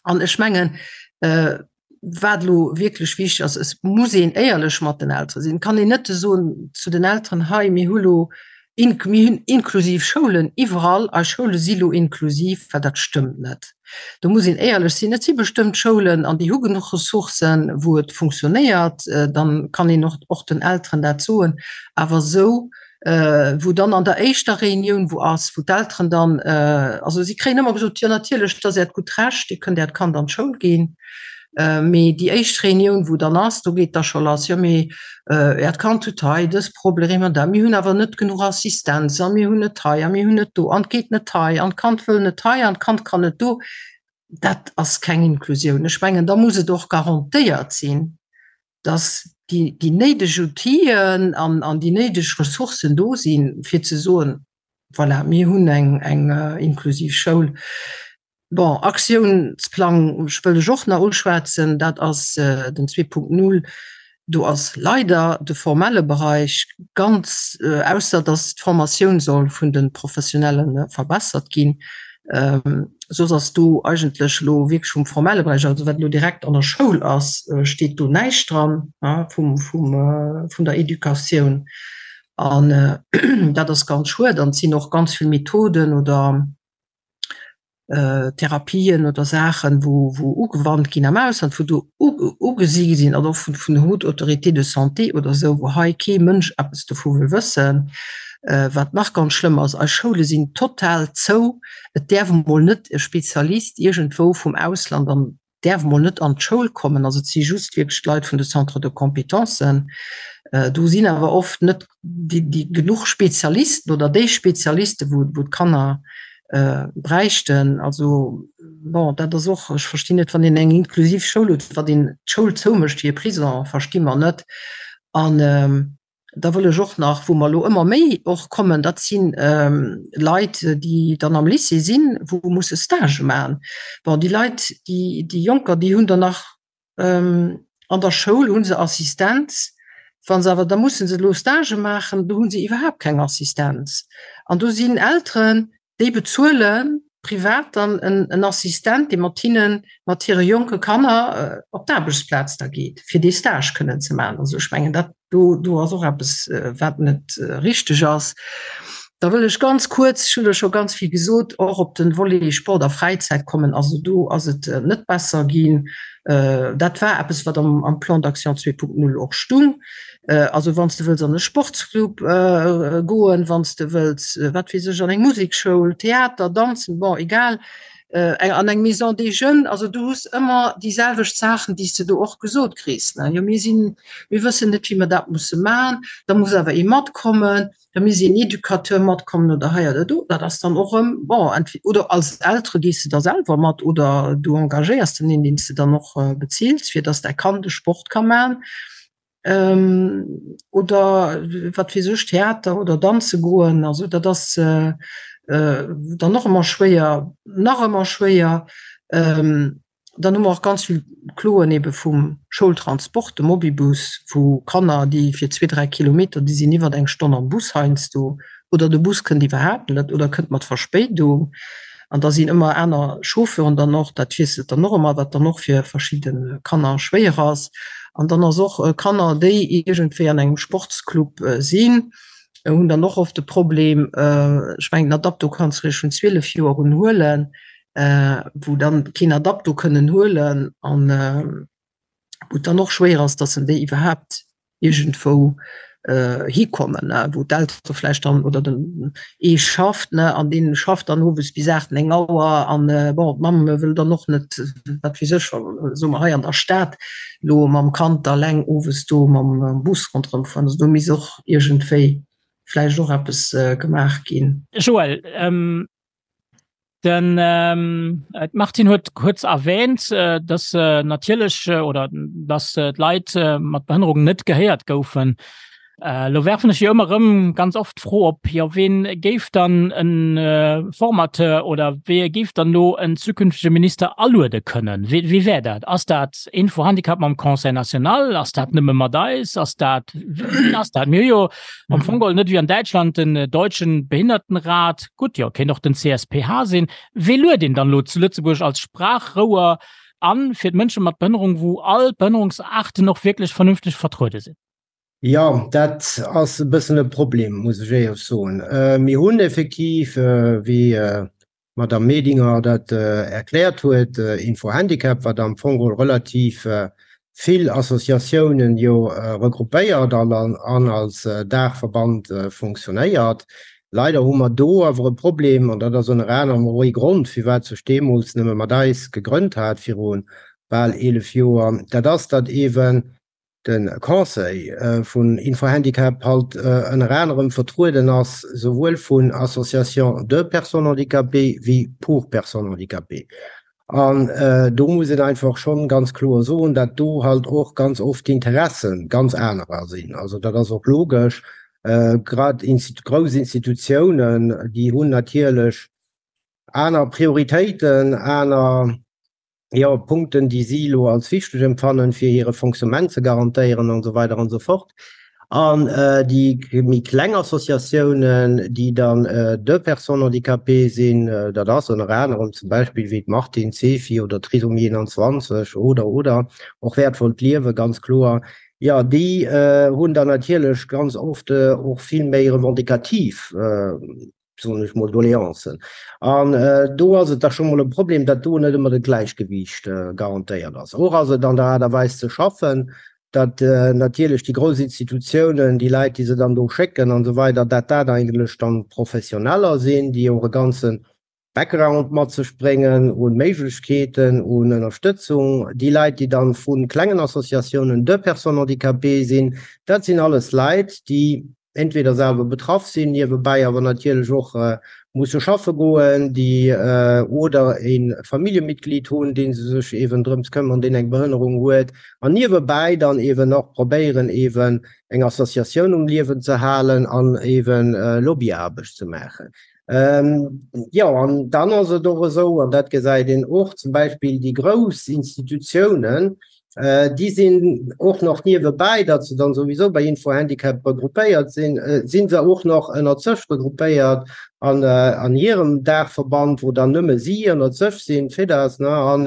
An ech mengen, wat elo wierklech wichteg ass, et muss een éierlech mat den Eltere sinn. Et kann een net soen zu den Elteren, hei mir hu lo Mir hunn inklusiv Schoulen iwwerall. Eis Schoule si lo inklusiv, well dat stëmmt net. Do muss een éierlech sinn. Et si bestëmmt Schoulen an déi hu genuch Ressourcen, wou et funktionéiert. Dann kann een och och den Elteren dat soen. Awer esou, wou dann an der éischter Reunioun wou ass, wou d'Elteren dann, also si kréien ëmmer gesot, jo natierlech, dat ass Äert gutt Recht, Dir kënnt Äert Kand an d'Schoul ginn. Mee déi éischt Reunioun, wou dann ass, do geet da scho lass, jo mee Äert Kand huet hei dës Problemer an dat, mir hunn awer net genuch Assistenz a mir hunn net hei a mir hunn net do an et geet net hei an d'Kand wëll net hei an d'Kand kann net do. Dat ass keng Inklusioun. Ech mengen, da muss et och garantéiert sinn, dass déi, déi néideg Outiller an, an déi néideg Ressourcen do sinn, fir ze soen, voilà, mir hunn eng, eng inklusiv Schoul. Bon, Aktiounsplang wëll ech och nach uschwätzen, dat ass den 2.0. Do ass leider de formelle Bereich ganz, ausser datt d'Formatioun soll vun de Professionelle verbessert ginn, soss ass do eigentlech elo wierklech vum formelle Bereich, also wat elo direkt an der Schoul ass, steet do näischt dran vum, vum, vun der Educatioun. An dat ass ganz schued. An et sinn och ganz vill Methoden oder Therapien oder Saachen, wou wou ugewannt ginn am Ausland, wou do ugesi sinn, also och vun vun der Haute Autorité de Santé oder esou, wou hei kee Mënsch eppes dovu wëll wëssen. Wat nach ganz schlëmm ass, eis Schoule sinn total zou. Et däerf emol net e Spezialist iergendwou vum Ausland an däerf mol net an d'Schoul kommen, also et si just wierklech d'Leit vun de Centres de compétences. Do sinn awer oft net déi, déi genuch Spezialisten oder déi Spezialisten, wou, wou d'Kanner bräichten. Also bon, dat ass och, ech verstinn net, wann een eng inklusiv Schoul huet, wat een d'Schoul zoumécht wéi e Prison, versti mer net. An Da wëll ech och nach, wou mer elo ëmmer méi och kommen, dat si Leit, déi dann am Lycée sinn, wou musse Stage maachen. Bon, déi Leit, déi, déi Jonker, déi hunn dann nach an der Schoul hu se Assistenz. Wa se awer da musse se elo Stage maachen, do hu se iwwerhaapt keng Assistenz. An do sinn Elteren, Déi bezuele privat dann en Assistent, dee mat hinnen, mat hire jonke Kanner op d'Aarbechtsplaz da geet, fir dee Stage kënnen ze maachen. Also ech mengen, dat do, do ass och eppes, wat net richteg ass. Da wëll ech ganz kuerz, ech hunn der scho ganz vill gesot, och op de Volet Sport a Fräizäit kommen. Also do ass et net besser ginn. Dat war eppes, wat am Plan d'action 2.0 och stung. Also wann s de wëlls an e Sportsclub goen, wann s de wëlls, wat weess ech, an eng Musekschoul, Theater, Danzen, bon, egal, an eng Maison des Jeunes, also du hues ëmmer déi selwecht Saachen, déi s de do och gesot kriss, ne, jo mir sinn, mir wëssen net, wéi mer dat musse maachen, da muss awer ee matkommen. da misst een Educateur matkommen oder hei oder do. Dat ass dann och erëm, bon, entweder oder als Eltere gees de da selwer mat oder du engagéiers den een, deen s de dann och beziils, fir dass däi Kand e Sport ka man oder wat weess ech, Theater oder danze goen. Also dat ass dann och ëmmer schwéier, nach ëmmer schwéier. Dann hu mer och ganz vill Kloen ebe vum Schoultransport, de Mobibus, wou Kanner, déi fir zwee, dräi Kilometer, déi sinn iwwer eng Stonn am Bus heiansdo, oder de Bus kënnt iwwerhaapt net oder kënnt mat Verspéidung. An da sinn ëmmer aner Chauffeuren dann och, dat wiesselt dann och ëmmer, wat dann och fir verschidde Kanner schwéier ass. An dann ass och Kanner, déi iergendwéi an engem Sportsclub sinn, hunn dann och oft de Problem, ech mengen, den Adapto kanns du eréischt vun 12 Joer un huelen, wou dann keen Adapto kënnen huelen an wou et dann och schwéier ass, dass en déi iwwerhaapt iergendwou hikommen, wou d'Eltere vläicht dann oder den ee schafft ne an dee schafft dann owes bis 8, 9 Auer an bon d'Mamm wëll dann och net, wat weess ech, soe mer hei an der Stad elo mam Kand da eleng owes do mam Bus ronderëm fueren. Also do misst och iergendwéi vläicht och eppes gemaach ginn. Joël, Den d'Martine huet kuerz erwähnt, dass natierlech oder dass d'Leit mat Behënnerung net gehéiert goufen. Elo werfen ech jo ëmmer erëm ganz oft d'Fro op, jo ween géif dann e Formateur oder wee géif dann elo en zukünftege Minister aluede kënnen? Wee wee wär dat? Ass dat Info-Handicap mam Conseil national? Ass dat nëmme mat eis? Ass dat, wien ass dat? Mir hu jo am Fong geholl net wéi an Däitschland den Deutschen Behindertenrat, gutt, jo, kéint och den CSPH sinn. Wee luet een dann elo zu Lëtzebuerg als Sprachrouer an fir d'Mënsche mat Behënnerung, wou all d'Behënnerungsaarten och wierklech vernünfteg vertruede sinn? Jo, dat ass e bëssen e Problem, muss ech éierlech soen. Mir hunn effektiv, wéi d'Madame Medinger dat erkläert huet, Info-Handicap, wat am Fong geholl relativ vill Associatiounen jo regroupéiert an als Daachverband funktionéiert. Leider hu mer do awer e Problem, an dat ass ënner anerem och ee Grond, firwat sech deemools Nëmme mat eis gegrënnt hat viru bal 11 Joer, dat ass, datt eeben de Conseil vun Info-Handicap halt ënner anerem vertrueden ass souwuel vun Associations de personnes handicapées wéi pour personnes handicapées. An do muss een einfach schonn ganz kloer soen, dat do halt och ganz oft d'Interesse ganz anerer sinn. Also dat ass och logesch. Grad grouss Institutiounen, déi hunn natierlech aner Prioritéiten, aner jo, Punkten, déi si elo als wichteg empfannen, fir hire Fonctionnement ze garantéieren an esou weider an esou fort. An déi méi kleng Associatiounen, déi dann de Personnes handicapées sinn, dat ass ënner anerem zum Beispill wéi d'Martine, d'Sefi oder d'Trisomie 21 oder, oder och Wäertvollt Liewen, ganz kloer, jo, déi hunn dann natierlech ganz oft och vill méi revendicativ soen ech mol, Doleancen. An do ass et da scho mol e Problem, datt do net ëmmer de Gläichgewiicht garantéiert ass. Och ass et an der Aart a Weis ze schaffen, datt natierlech déi grouss Institutiounen, déi Leit, déi se dann do schécken an esou weider, datt dat eigentlech dann Professioneller sinn, déi och e ganze Background mat sech bréngen un Méiglechkeeten, un Ënnerstëtzung. Déi Leit, déi dann vu klengen Associatiounen de Personnes handicapées sinn, dat sinn alles Leit, déi entweder selwer betraff sinn, niewebäi awer natierlech och musse schaffe goen, déi oder e Familljemitglied hunn, dee se sech eeben drëms këmmern, deen eng Behënnerung huet, an niewebäi dann eeben och probéieren, eeben eng Associatioun um Liewen ze halen an eeben Lobbyaarbecht ze maachen. Jo, an dann ass et och esou, an dat gesäit een och zum Beispill déi grouss Institutiounen, déi sinn och nach niewebäi, datt se dann souwisou bei Info-Handicap regroupéiert sinn, si se och nach ënnert sech regroupéiert an an hirem Daachverband, wou dann nëmme si ënnert sech sinn, d'FEDAS, ne. An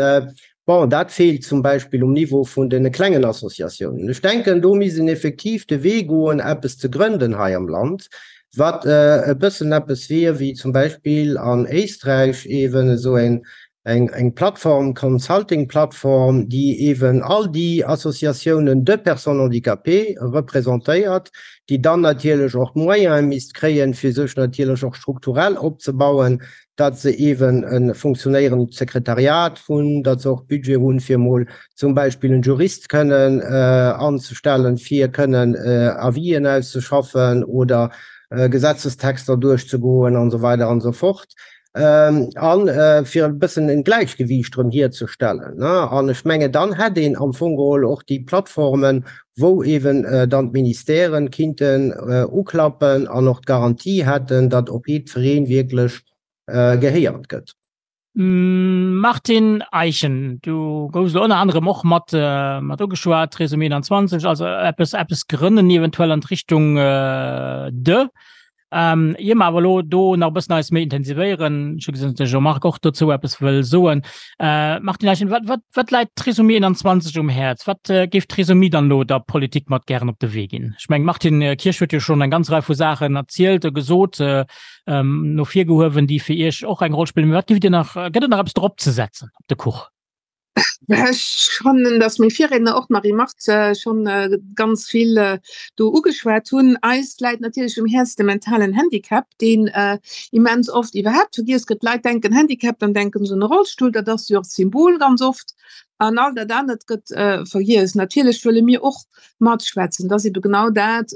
bon, dat feelt zum Beispill um Niveau vun deene klengen Associatiounen. Ech denken, do misst een effektiv de Wee goen, eppes ze grënden hei am Land. Wat e bëssen eppes wier wéi zum Beispill an Éisträich eeben esou eng eng Plattform, Consulting-Plattform, déi eeben all déi Associatiounen de personnes handicapées representéiert, déi dann natierlech och d'Moyene misst kréien, fir sech natierlech och strukturell opzebauen, datt se eeben e funktionéierend Sekretariat hunn, datt se och Budget hunn, fir emol zum Beispill en Jurist kënnen anzestellen, fir kënnen Avisen auszeschaffen oder Gesetzestexter duerchzegoen an esou weider an esou fort, a fir e bëssen en Gläichgewiicht erëm hierzestellen. An ech mengen, dann hätt een am Fong geholl och déi Plattformen, wou eeben dann d'Ministèren kinnten uklappen an och d'Garantie hätten, datt op jiddweree wierklech gehéiert gëtt. Martine Eischen, du goufs elo ënner anerem och mat mat ugeschwat, Trisomie 21, also eppes eppes grënnen eventuell an d'Richtung de. Ähm, ier mer awer elo do nach e bëssen eis méi intensivéieren, ech hu gesinn, datt de Jean-Marc och dozou eppes wëll soen. Äh, Martine Eischen, wat, wat, wat läit Trisomie 21 um Häerz? Wat äh, géif Trisomie dann elo der Politik mat gären op de Wee ginn? Ech meng, Martine Kirsch huet jo schonn eng ganz Rei vu Saachen erzielt a gesot, äh, ähm, no vir gehuewen, déi fir Iech och eng Roll spillen. Mee wat géift Dir nach, gëtt et nach eppes drop ze setzen op de Kuch? Ech fannen, datt meng Virriedner, och d'Marie Marthe, schonn ganz vill do ugeschwat hunn. Eis läit natierlech um Häerz de mentalen Handicap, deen immens oft iwwerhaapt vergiess gëtt. D'Leit denken Handicap, dann denken se un e Rollstull, dat ass jo och d'Symbol ganz oft, an all dat anert gëtt vergiess. Natierlech wëlle mir och matschwätzen, dat ass ebe genau dat,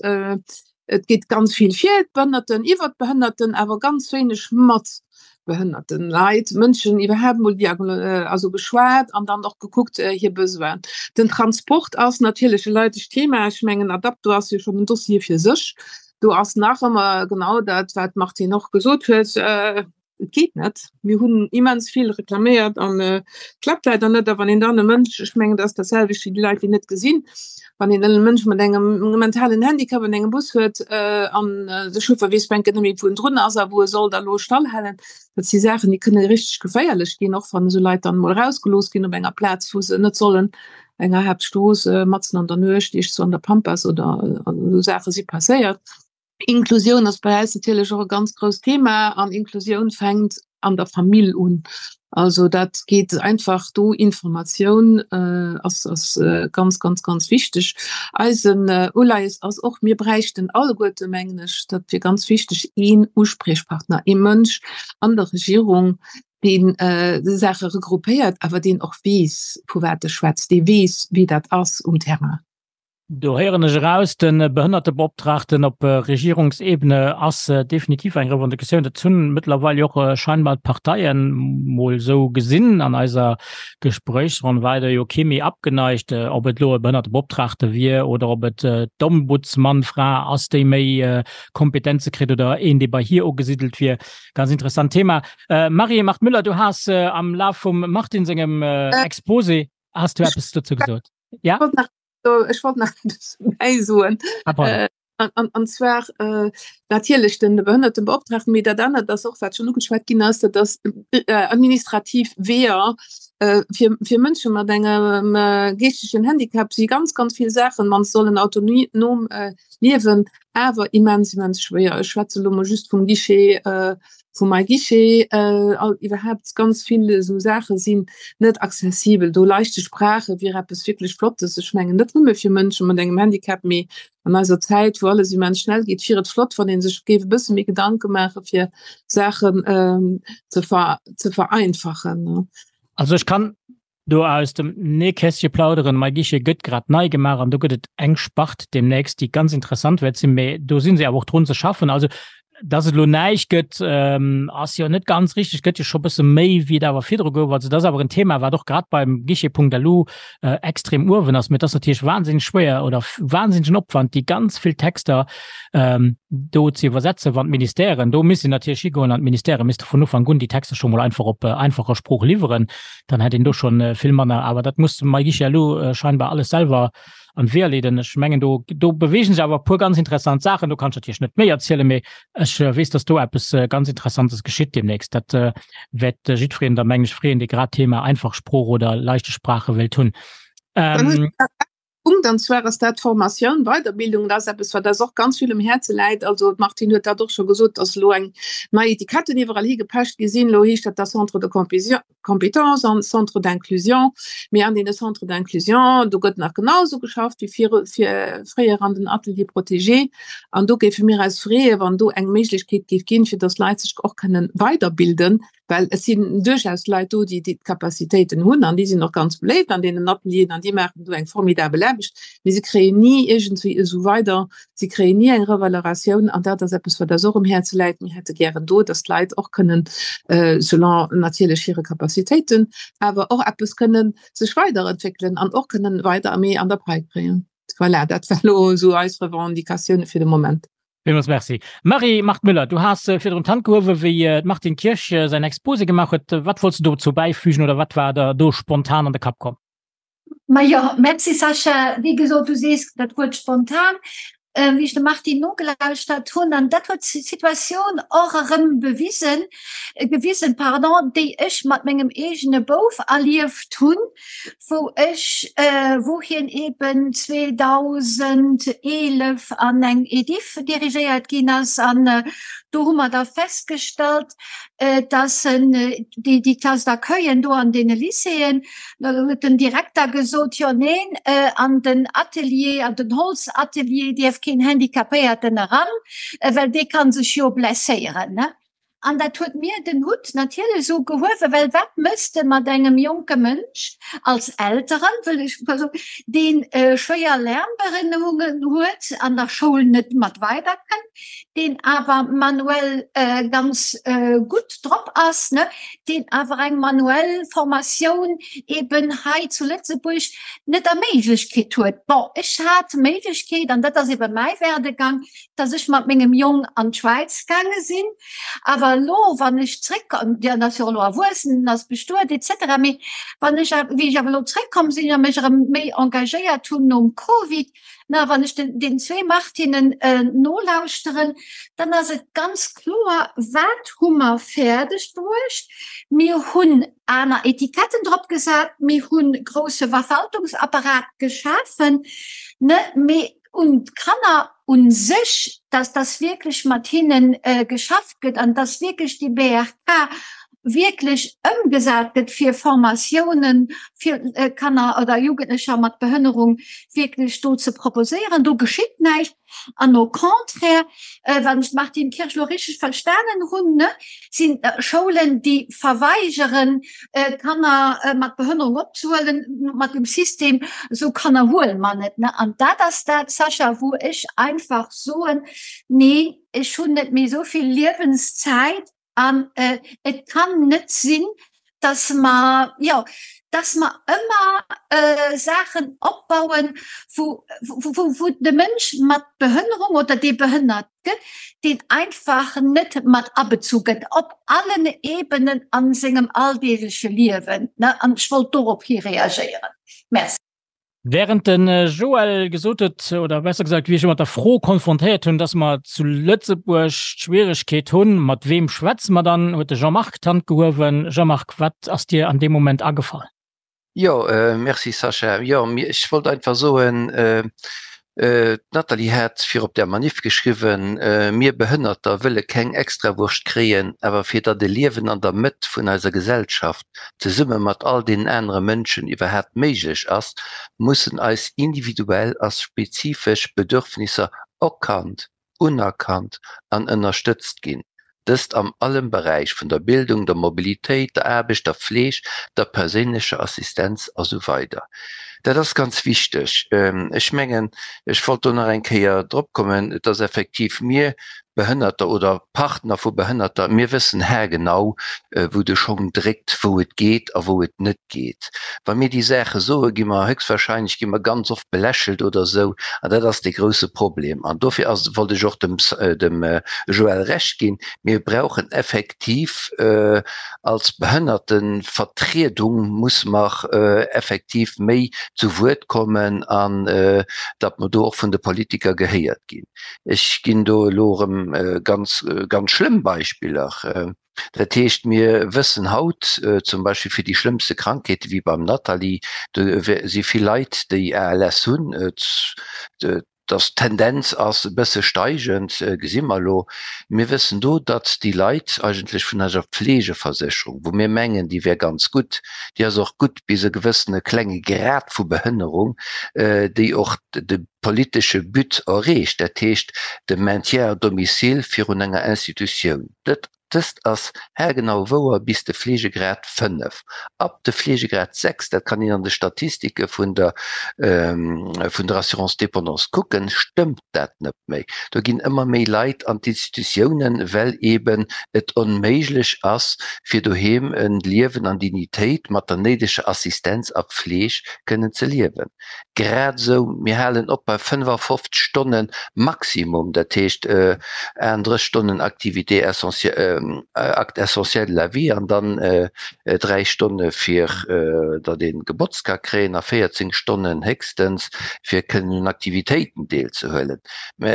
Et geet ganz vill fir d'Behënnerten, iwwer d'Behënnerten, awer ganz wéineg mat behënnerten Leit, Mënschen iwwerhaapt mol also geschwat an dann och gekuckt hir Besoinen. Den Transport ass natierlech e leidegt Thema. Ech mengen Adapto ass jo schonn en Dossier fir sech. Do ass nach ëmmer genau dat, wat d'Martine och gesot huet, Et geet net. Mir hunn immens vill reklaméiert an et klappt leider net. A wann een dann e Mënsch, ech mengen, dat ass dat selwecht wéi déi Leit, déi net gesinn, wann een e Mënsch mat engem mentalen Handicap an engem Bus huet an de Chauffer weess bänke net méi, wou en drun ass a wou e soll da lo stallhalen, dat si Saachen, déi kënne richteg geféierlech ginn, och wann esou Leit dann emol erausgelooss ginn op enger Plaz, wou se net sollen, enger Haaptstrooss, matzen an der Nuecht, iergendwou an der Pampas oder esou Saache si passéiert. Inklusioun ass bei eis natierlech och e ganz grousst Thema an Inklusioun fänkt an der Famill un. Also dat geet einfach do Informatioun äh, ass, ass äh, ganz ganz ganz wichteg. Eisen äh, Uleies ass och mir bräichten alleguerte mengen ech, dat wier ganz wichteg een Uspriechpartner, ee Mënsch an der Regierung, deen äh, Saache regroupéiert, awer deen och weess vu wat e schwätzt, dee weess wéi dat ass um Terrain. Do héieren ech eraus, de Behënnertebeoptraagten op Regierungsebene ass definitiv eng Revendicatioun. Dat hunn mëttlerweil jo och scheinbar d'Parteien mol esou gesinn. An eiser Gespréichsronn war do jo kee méi abgeneigt, ob et elo e Behënnertebeoptraagte wier oder ob et d'Ombudsmannfra ass, déi méi Kompetenze kritt oder een, dee bei hir ugesiddelt wier. Ganz interessant Thema. Marie-Marthe Müller, du has am Laf vum Martine sengem Exposé, has du eppes dozou gesot? Ja? Ech wollt nach eppes bäisoen. Ah, pardon. An, an, an zwar äh, natierlech den Behënnertenbeoptragten, mee dat anert ass och, wat schonn ugeschwat ginn ass, dat ass äh, administrativ Weeër äh, fir, fir Mënsche mat engem äh, geeschtegen Handicap si ganz, ganz vill Saachen, wann se sollen autonom äh, liewen, awer immens, immens schwéier. Ech schwätze lo mol just vum Guichet äh, vum MyGuichet, all iwwerhaapt ganz vill esou Saache sinn net accessibel. Do leichte Sprache wier eppes wierklech Flottes. Ech mengen net nëmme fir Mënsche mat engem Handicap, mee an eiser Zäit, wou alles immens schnell geet, wier et flott, wann ee sech géif e bësse méi Gedanke maache fir Saachen ze ze vereinfachen. Also ech kann Do aus dem Nähkästche plauderen, Mei Guichet gëtt grad nei gemaach an do gëtt et eng Spart deemnächst, déi ganz interessant wäert sinn, mä do si se awer och drun ze schaffen. Also, dass et elo näischt gëtt, ass jo net ganz richteg, gëtt jo scho bësse méi, wéi et awer virdru gouf. Also, dat ass awer en Thema, wat och grad beim Guichet.lu extrem uewen ass. Mä et ass natierlech wahnsinneg schwéier oder wahnsinnegen Opwand, déi ganz vill Texter do ze iwwersetzen, wann d'Ministèren, do misst een natierlech higoen an d'Ministèrë misste vun Ufank un déi Texter scho mol einfach op einfacher Sprooch liwweren. dann hätt een do schon äh, vill manner. Awer dat muss Maïgisha Lu äh, scheinbar alles selwer an d'Weeër leeden. Ech mengen do, do bewegen sech awer puer ganz interessant Saachen. Do kann ech natierlech net méi erzielen, mee ech äh, weess, dass do eppes äh, ganz Interessantes geschitt demnächst. Dat äh, wäert äh, jiddwereen da meng ech freeën, dee grad Thema einfach Sprooch oder leichte Sprache wéilt hunn. Ähm, Punkt, an zwar ass dat d'Formatioun, Weiderbildung. Dat ass eppes, wat eis och ganz vill um Häerze läit. Also d'Martine huet dat och scho gesot, dass elo eng nei Etiketten iwwerall higepecht gi sinn. Elo heescht dat da Centre de compétences an Centre d'inclusion. Mee an deene Centres d'inclusion, do gëtt nach genau esou geschafft wéi viru fréier an den Ateliers protégés. An do géife mir eis freeën, wann do eng Méiglechkeet géif ginn, fir dass Leit sech och kënnen weiderbilden, well et sinn duerchaus Leit do, déi déi d'Capacitéiten hunn an déi sinn och ganz beléift an deenen Atelieren an déi maachen do eng formidabel Aarbecht, mee se kréien ni iergendwéi esou weider, se kréien ni eng Revaloratioun an dat ass eppes, wat eis och um Häerze läit. Mir hätte gären do, dass d'Leit och kënnen, selon natierlech hire Capacitéiten, awer och eppes kënnen sech weiderentwéckelen an och kënnen weider méi an der Pai kréien. Voilà, dat war elo esou eis Revendicatioune fir de Moment. Villmools Merci. Marie-Marthe Müller, du has virdrun d'Hand gehuewen, wéi d'Martine Kirsch säin Exposé gemaach huet. Wat wollts du dozou bäifügen oder wat war der do spontan an de Kapp komm? Majo, Merci Sascha. Wéi gesot, du sees dat Wuert spontan. Wéi ech dem Martine nogelauschtert hunn, an dat huet d'Situatioun och erëm bewisen, gewisen, pardon, déi ech mat mengem eegene Bouf erlieft hunn, wou ech, wou hien eben 2011 an eng Ediff dirigéiert ginn ass an do hu mer da festgestallt, dass en déi déi Classe d'accueillen do an deene Lycéeën, do huet den Direkter gesot, jo neen, an den Atelier, an den Holzatelier dierf keen Handicapéierten eran, well dee ka sech jo blesséieren. An dat huet mir den Hutt natierlech esou gehuewen, well wat mëss de mat engem jonke Mënsch als Elteren, wëll ech mol soen, dee schwéier Lernbehënnerungen huet, an der Schoul net mat weiderkënnt, deen awer manuell ganz gutt drop ass, ne, deen awer eng manuell Formatioun eben hei zu Lëtzebuerg net erméiglecht kritt huet. Bon, ech hat d'Méiglechkeet, an dat ass ebe mäi Werdegang, dass ech mat mengem Jong an d'Schwäiz gaange sinn. Awer elo, wann ech zréckkomm, dien ass jo elo erwuessen, en ass bestuet et cetera, mee wann ech, wéi ech awer elo zréckkomm sinn a mech erëm méi engagéiert hunn nom Covid, na wann ech den, den zwee Martinnen nolauschteren, dann ass et ganz kloer, wat hu mer fäerdeg bruecht? Mir hunn aner Etiketten drop gesat, mir hunn grousse Verwaltungsapparat geschafen, ne, mee un d'Kanner u sech, dass dass wierklech mat hinne geschafft gëtt an dass wierklech déi BRK wierklech ëmgesat gëtt fir Formatiounen fir Kanner oder Jugendlecher mat Behënnerung wierklech do ze proposéieren. Do geschitt näischt. An au contraire, wann ech d'Martine Kirsch elo richteg verstanen hunn, ne, sinn Schoulen, déi verweigeren, Kanner mat Behënnerung opzehuelen, mat dem System, esou Kanner huele mer net. An dat ass dat, Sascha, wou ech einfach soen, nee, ech hunn net méi esou vill Liewenszäit an et kann net sinn, dass mer, jo, dass mer ëmmer Saachen opbauen, wou, wou, wou de Mënsch mat Behënnerung oder dee behënnert gëtt, deen einfach net mat abezu gëtt op allen Ebenen a sengem alldeegleche Liewen. An ech wollt dorop hi reagéieren. Merci. Während de Joël gesot huet, oder besser gesagt, wéi ech e mat der Fro konfrontéiert hunn, dass mer zu Lëtzebuerg d'Schwieregkeet hunn, mat weem schwätze mer dann, huet de Jean-Marc d'Hand gehuewen. Jean-Marc, wat ass dir an deem Moment agefall? Jo, merci Sascha. Jo, ech wollt einfach soen, d'Nathalie hat fir op der Manif geschriwwen, Mir Behënnerter wëlle keng Extrawurscht kréien, awer fir datt e Liewen an der Mëtt vun eiser Gesellschaft zesumme mat all deenen anere Mënschen iwwerhaapt méiglech ass, mussen eis individuell a spezifesch Bedürfnisser erkannt unerkannt an ënnerstëtzt ginn, dëst am allem Beräich vun der Bildung, der Mobilitéit, der Aarbecht, der Fleeg, der perséinlecher Assistenz a sou weider. Dat ass ganz wichteg. Ech mengen, ech wollt do nach eng Kéier drop kommen, et ass effektiv, mir Behënnerter oder Partner vu Behënnerter, mir wëssen haargenau, wou de Schong dréckt, wou et geet a wou et net geet. Wa mir déi Saache soen, gi mer héchstwahrscheinlech gi mer ganz oft belächelt oder esou, an dat ass dee grouse Problem. An dofir ass, wollt ech och dem dem Joël Recht ginn, mir brauchen effektiv als Behënnertevertriedung musse mer effektiv méi zu Wuert kommen an datt mer do och vun de Politiker gehéiert ginn. Ech ginn do elo erëm. erëm ganz, ganz schlëmm Beispiller. Dat heescht, mir wëssen haut zum Beispill fir déi schlëmmste Krankheete wéi beim Nathalie, do si vill Leit, déi ALS hunn, dass d'Tendenz ass e bësse steigend, gesi mer elo. Mir wëssen do, datt déi Leit eigentlech vun eiser Fleegeversécherung, wou mir mengen, déi wär ganz gutt, déi ass och gutt bis e gewëssene klenge Grad vu Behënnerung, déi och de politesche But erreecht, dat heescht de Maintien à domicile virun enger Institutioun. Dat Dëst ass haargenau wouer bis de Fleegegrad 5. Ab de Fleegegrad 6, dat kann een an de Statistike vun der vun der Assurance dépendance kucken, stëmmt dat net méi. Do ginn ëmmer méi Leit an d'Institutiounen, well eeben et onméiglech ass, fir doheem e Liewen an Dignitéit mat der néideger Assistenz a Pfleeg kënnen ze liewen. Grad esou, mir halen op bei 55 Stonne Maximum, dat heescht 38 Stonnen Activité essentielle, Actes essentiels de la vie an dann 3 Stonne fir datt ee gebotzt ka kréien a 14 Stonnen héchstens fir kënnen un Aktivitéiten deelzehuelen. Mä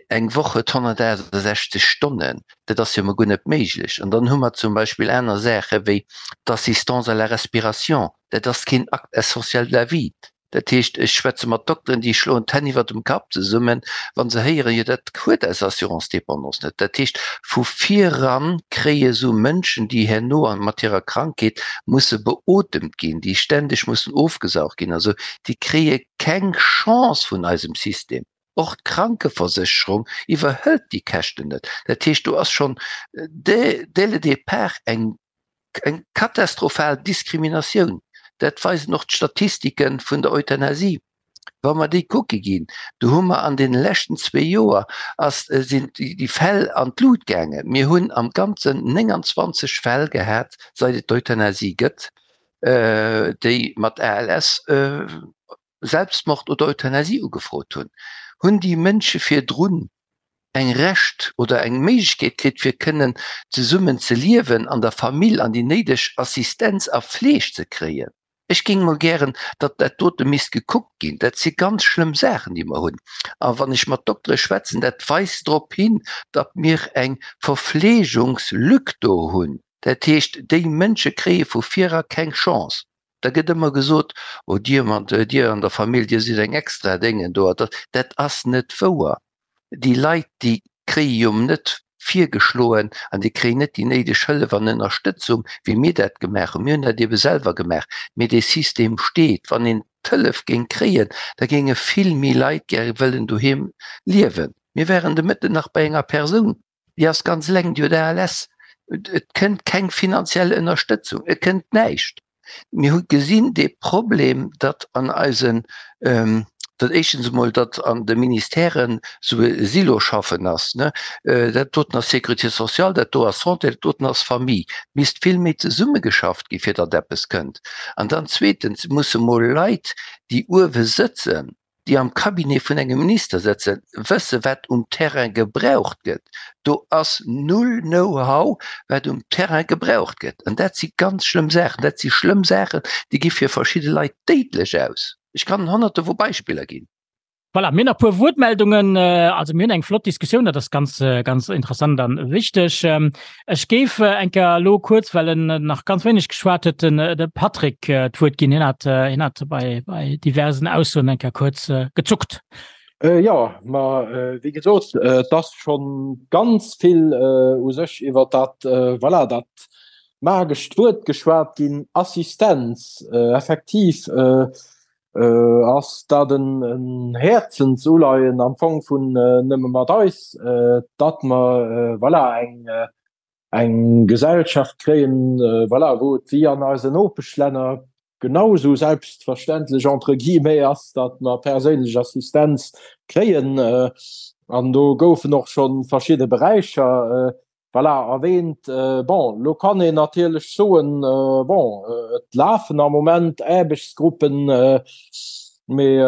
eng Woch huet 168 Stonnen, dat ass jo emol guer net méiglech. An dann hu mer zum Beispill aner Saache wéi d'Assistance à la respiration, Dat ass keen Acte essentiel de la vie. Dat heescht, ech schwätze mat Dokteren, déi schloen d'Hänn iwwer dem Kapp zesummen, wa se héieren, jo dat huet eis Assurance dépendance net. Dat heescht, vu viran kréie sou Mënschen, déi herno mat hirer Krankheet musse beotemt ginn, déi ständeg mussen ofgesaugt ginn a sou, déi kréie keng Chance vun eisem System. Och d'Krankeversécherung iwwerhëlt déi Käschten net. Dat heescht, do ass schonn dès le départ eng Eng katastrophal Diskriminatioun, dat weisen och d'Statistike vun der Euthanasie. Wa mer déi kucke ginn, do hu mer an deene leschten zwee Joer ass, sinn déi Fäll an d'Lut gaangen. Mir hunn am Ganzen 29 Fäll gehat, seit et d'Euthanasie gëtt, déi mat ALS Selbstmord oder Euthanasie ugefrot hunn. Hunn déi Mënsche virdrun eng Recht oder eng Méiglechkeet kritt fir kënnen zesummen ze liewen an der Famill an déi néideg Assistenz a Fleeg ze kréien. Ech géing mol gären, datt dat dote misst gekuckt ginn. Dat si ganz schlëmm Saachen, déi mer hunn. A wann ech mat Doktere schwätzen, dat weist drop hin, datt mir eng Verfleegungslück do hunn. Dat heescht, déi Mënsche kréie vu vir era keng Chance. Da gëtt ëmmer gesot, oh Dir mat, Dir an der Famill, Dir sidd eng extra Déngen do. Dat ass net wouer. Déi Leit, déi kréie jo net virgeschloen an déi kréien net déi néideg Hëllef an Ënnerstëtzung, wéi mir dat gemaach hunn. Mir hunn dat ebe selwer gemaach. Mee dee System steet. Wann een d'Hëllef géing kréien, da géinge vill méi Leit gäre wëllen doheem liewen. Mir waren de Mëtten nach bei enger Persoun, Déi ass ganz eleng, déi huet ALS. Et kënnt keng finanziell Ënnerstëtzung, et kënnt näischt. Mir hu gesinn dee Problem, datt an eisen, datt éischtens emol, datt an de Ministèren esou e Siloschaffen ass, ne, dat doten ass Sécurité sociale, dat do ass Santé, dat doten ass Famille. Et misst vill méi zesummegeschafft gi fir datt eppes kënnt. An dann zweetens musse mol Leit, déi uewe sëtzen, déi am Cabinet vun engem Minister sëtzen, wësse wat um Terrain gebraucht gëtt. Do ass null Know-how wat um Terrain gebraucht gëtt. An dat si ganz schlëmm Saachen. Dat si schlëmm Saachen, déi gi fir verschidde Leit déidlech aus. Ech kann Honnerte vu Beispiller ginn. Voilà, mir hunn nach e puer Wuertmeldungen. Also mir hunn eng flott Diskussioun, dat ass ganz, ganz interessant a wichteg. Ech géif eng Kéier elo kuerz, well en nach ganz wéineg geschwat huet, den de Patrick d'Wuert ginn. Hien hat, hien hat bei, bei diversen Aussoen eng Kéier kuerz gezuckt. Jo, ma wéi gesot, et ass scho ganz vill u sech iwwer dat, voilà, dat magescht Wuert geschwat ginn, Assistenz. Effektiv ass dat en Häerzensuleien am Fong vun Nëmme mat eis, datt mer, voilà, eng eng Gesellschaft kréien, voilà, wou et wéi an eisen Nopeschlänner genau esou selbstverständlech, entre guillemets, ass, datt mer perséinlech Assistenz kréien. An do goufen och scho verschidde Beräicher Voilà, erwähnt. Bon, lo kann een natierlech soen, bon, et lafen am Moment Aarbechtsgruppen, mee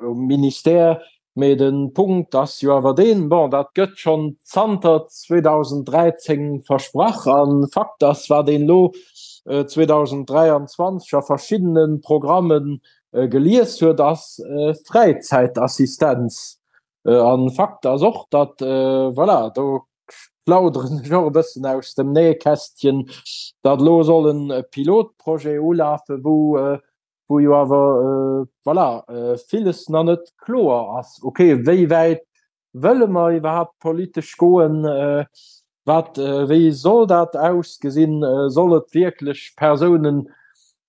um Ministère, mee de Punkt ass jo awer deen, bon, dat gëtt schonn zanter 2013 versprach a Fakt ass, wat een elo 2023 a verschiddene Programme gelies huet, ass Fräizäitassistenz. An Fakt ass och, datt, voilà, do plauderen ech och e bëssen aus dem Nähkästchen, datt elo soll e Pilotprojet ulafen, wou, wou jo awer, voilà, villes nach net kloer ass. Ok, wéi wäit wëlle mer iwwerhaapt politesch goen? Wat, wéi soll dat ausgesinn? Soll et wierklech Persounen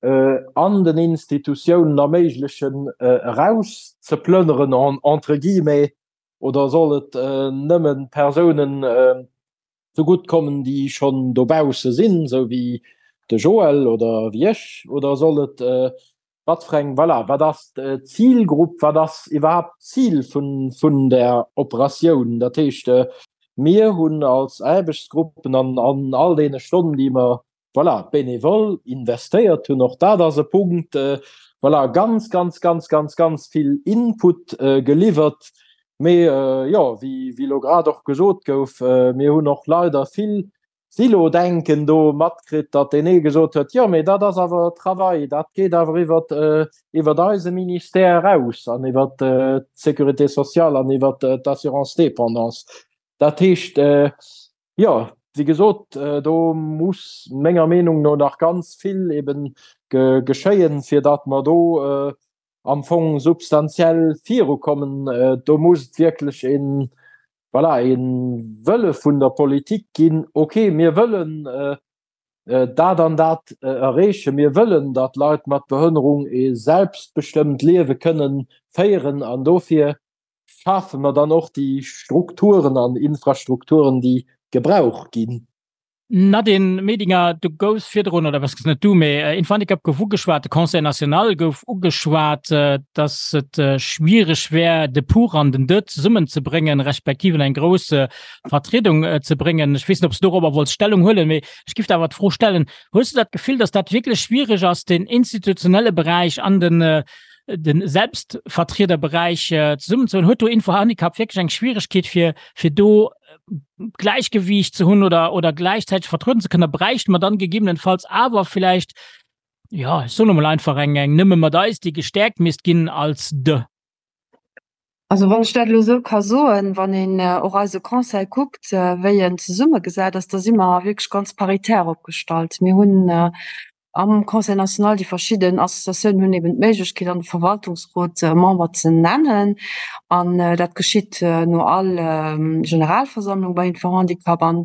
an den Institutiounen erméiglechen, erauszeplënneren, entre guillemets, oder soll et nëmme Persounen zegutt kommen, déi schonn dobausse sinn, esou wéi de Joël oder wéi ech, oder soll et Wat fir eng, voilà, wat ass d'Zilgrupp, wat ass iwwerhaapt d'Zil vun, vun där Operatioun? Dat heescht, mir hunn als Aarbechtsgruppen an an all deene Stonnen, déi mer, voilà, bénévol investéiert hunn, och dat ass e Punkt, voilà, ganz, ganz, ganz, ganz, ganz vill Input geliwwert. Mee jo, wéi, wéi elo grad och gesot gouf, mir hunn och leider vill Silo-Denken do matkritt, datt deen ee gesot huet, jo mee dat ass awer Travail, dat geet awer iwwer iwwer eise Ministère eraus an iwwer d'Sécurité sociale an iwwer d'Assurance dépendance. Dat heescht, jo, wéi gesot, do muss menger Meenung no nach ganz vill eben geschéien, fir datt mer do am Fong substantiell virukommen. Do muss et wierklech een, voilà, ee Wëlle vun der Politik ginn, okay, mir wëllen dat an dat erreechen, mir wëllen, datt Leit mat Behënnerung ee selbstbestëmmt Liewe kënnen féieren an dofir schafe mer dann och déi Strukturen an Infrastrukturen, déi gebraucht ginn. Nadine Medinger, du goufs virdrun, oder was net du, mee Infohandicap gouf ugeschwat, de Conseil national gouf ugeschwat, datt et schwiereg wär, de Pour an den De zesummenzebréngen, respektiv an eng grouss Vertriedung ze bréngen. Ech weess net, ob s du dorobber wollts Stellung huelen, mee ech giff der awer d'Fro stellen, Hues du dat Gefill, datt dat wierklech schwiereg ass, den institutionelle Beräich an den de Selbstvertriederberäich zesummenzehuelen? Huet do Infohandicap wierklech eng Schwieregkeet, fir fir do Gläichgewiicht ze hunn oder, oder gläichzäiteg vertrëden ze kënnen, bräichte mer dann gegebenenfalls awer vielleicht, ja, ech soen emol einfach eng, eng Nëmme mat eis, déi gestäerkt misst ginn als de. Also wann ech dat elo esou ka soen, wann een och eise Conseil kuckt, wéi en zesummegesat ass, da si mer wierklech ganz paritär opgestallt. Mir hunn Am Conseil national, déi verschidden Associatiounen hunn eben d'Méiglechkeet an de Verwaltungsrot Member ze nennen an dat geschitt no all Generalversammlung bei Info-Handicap an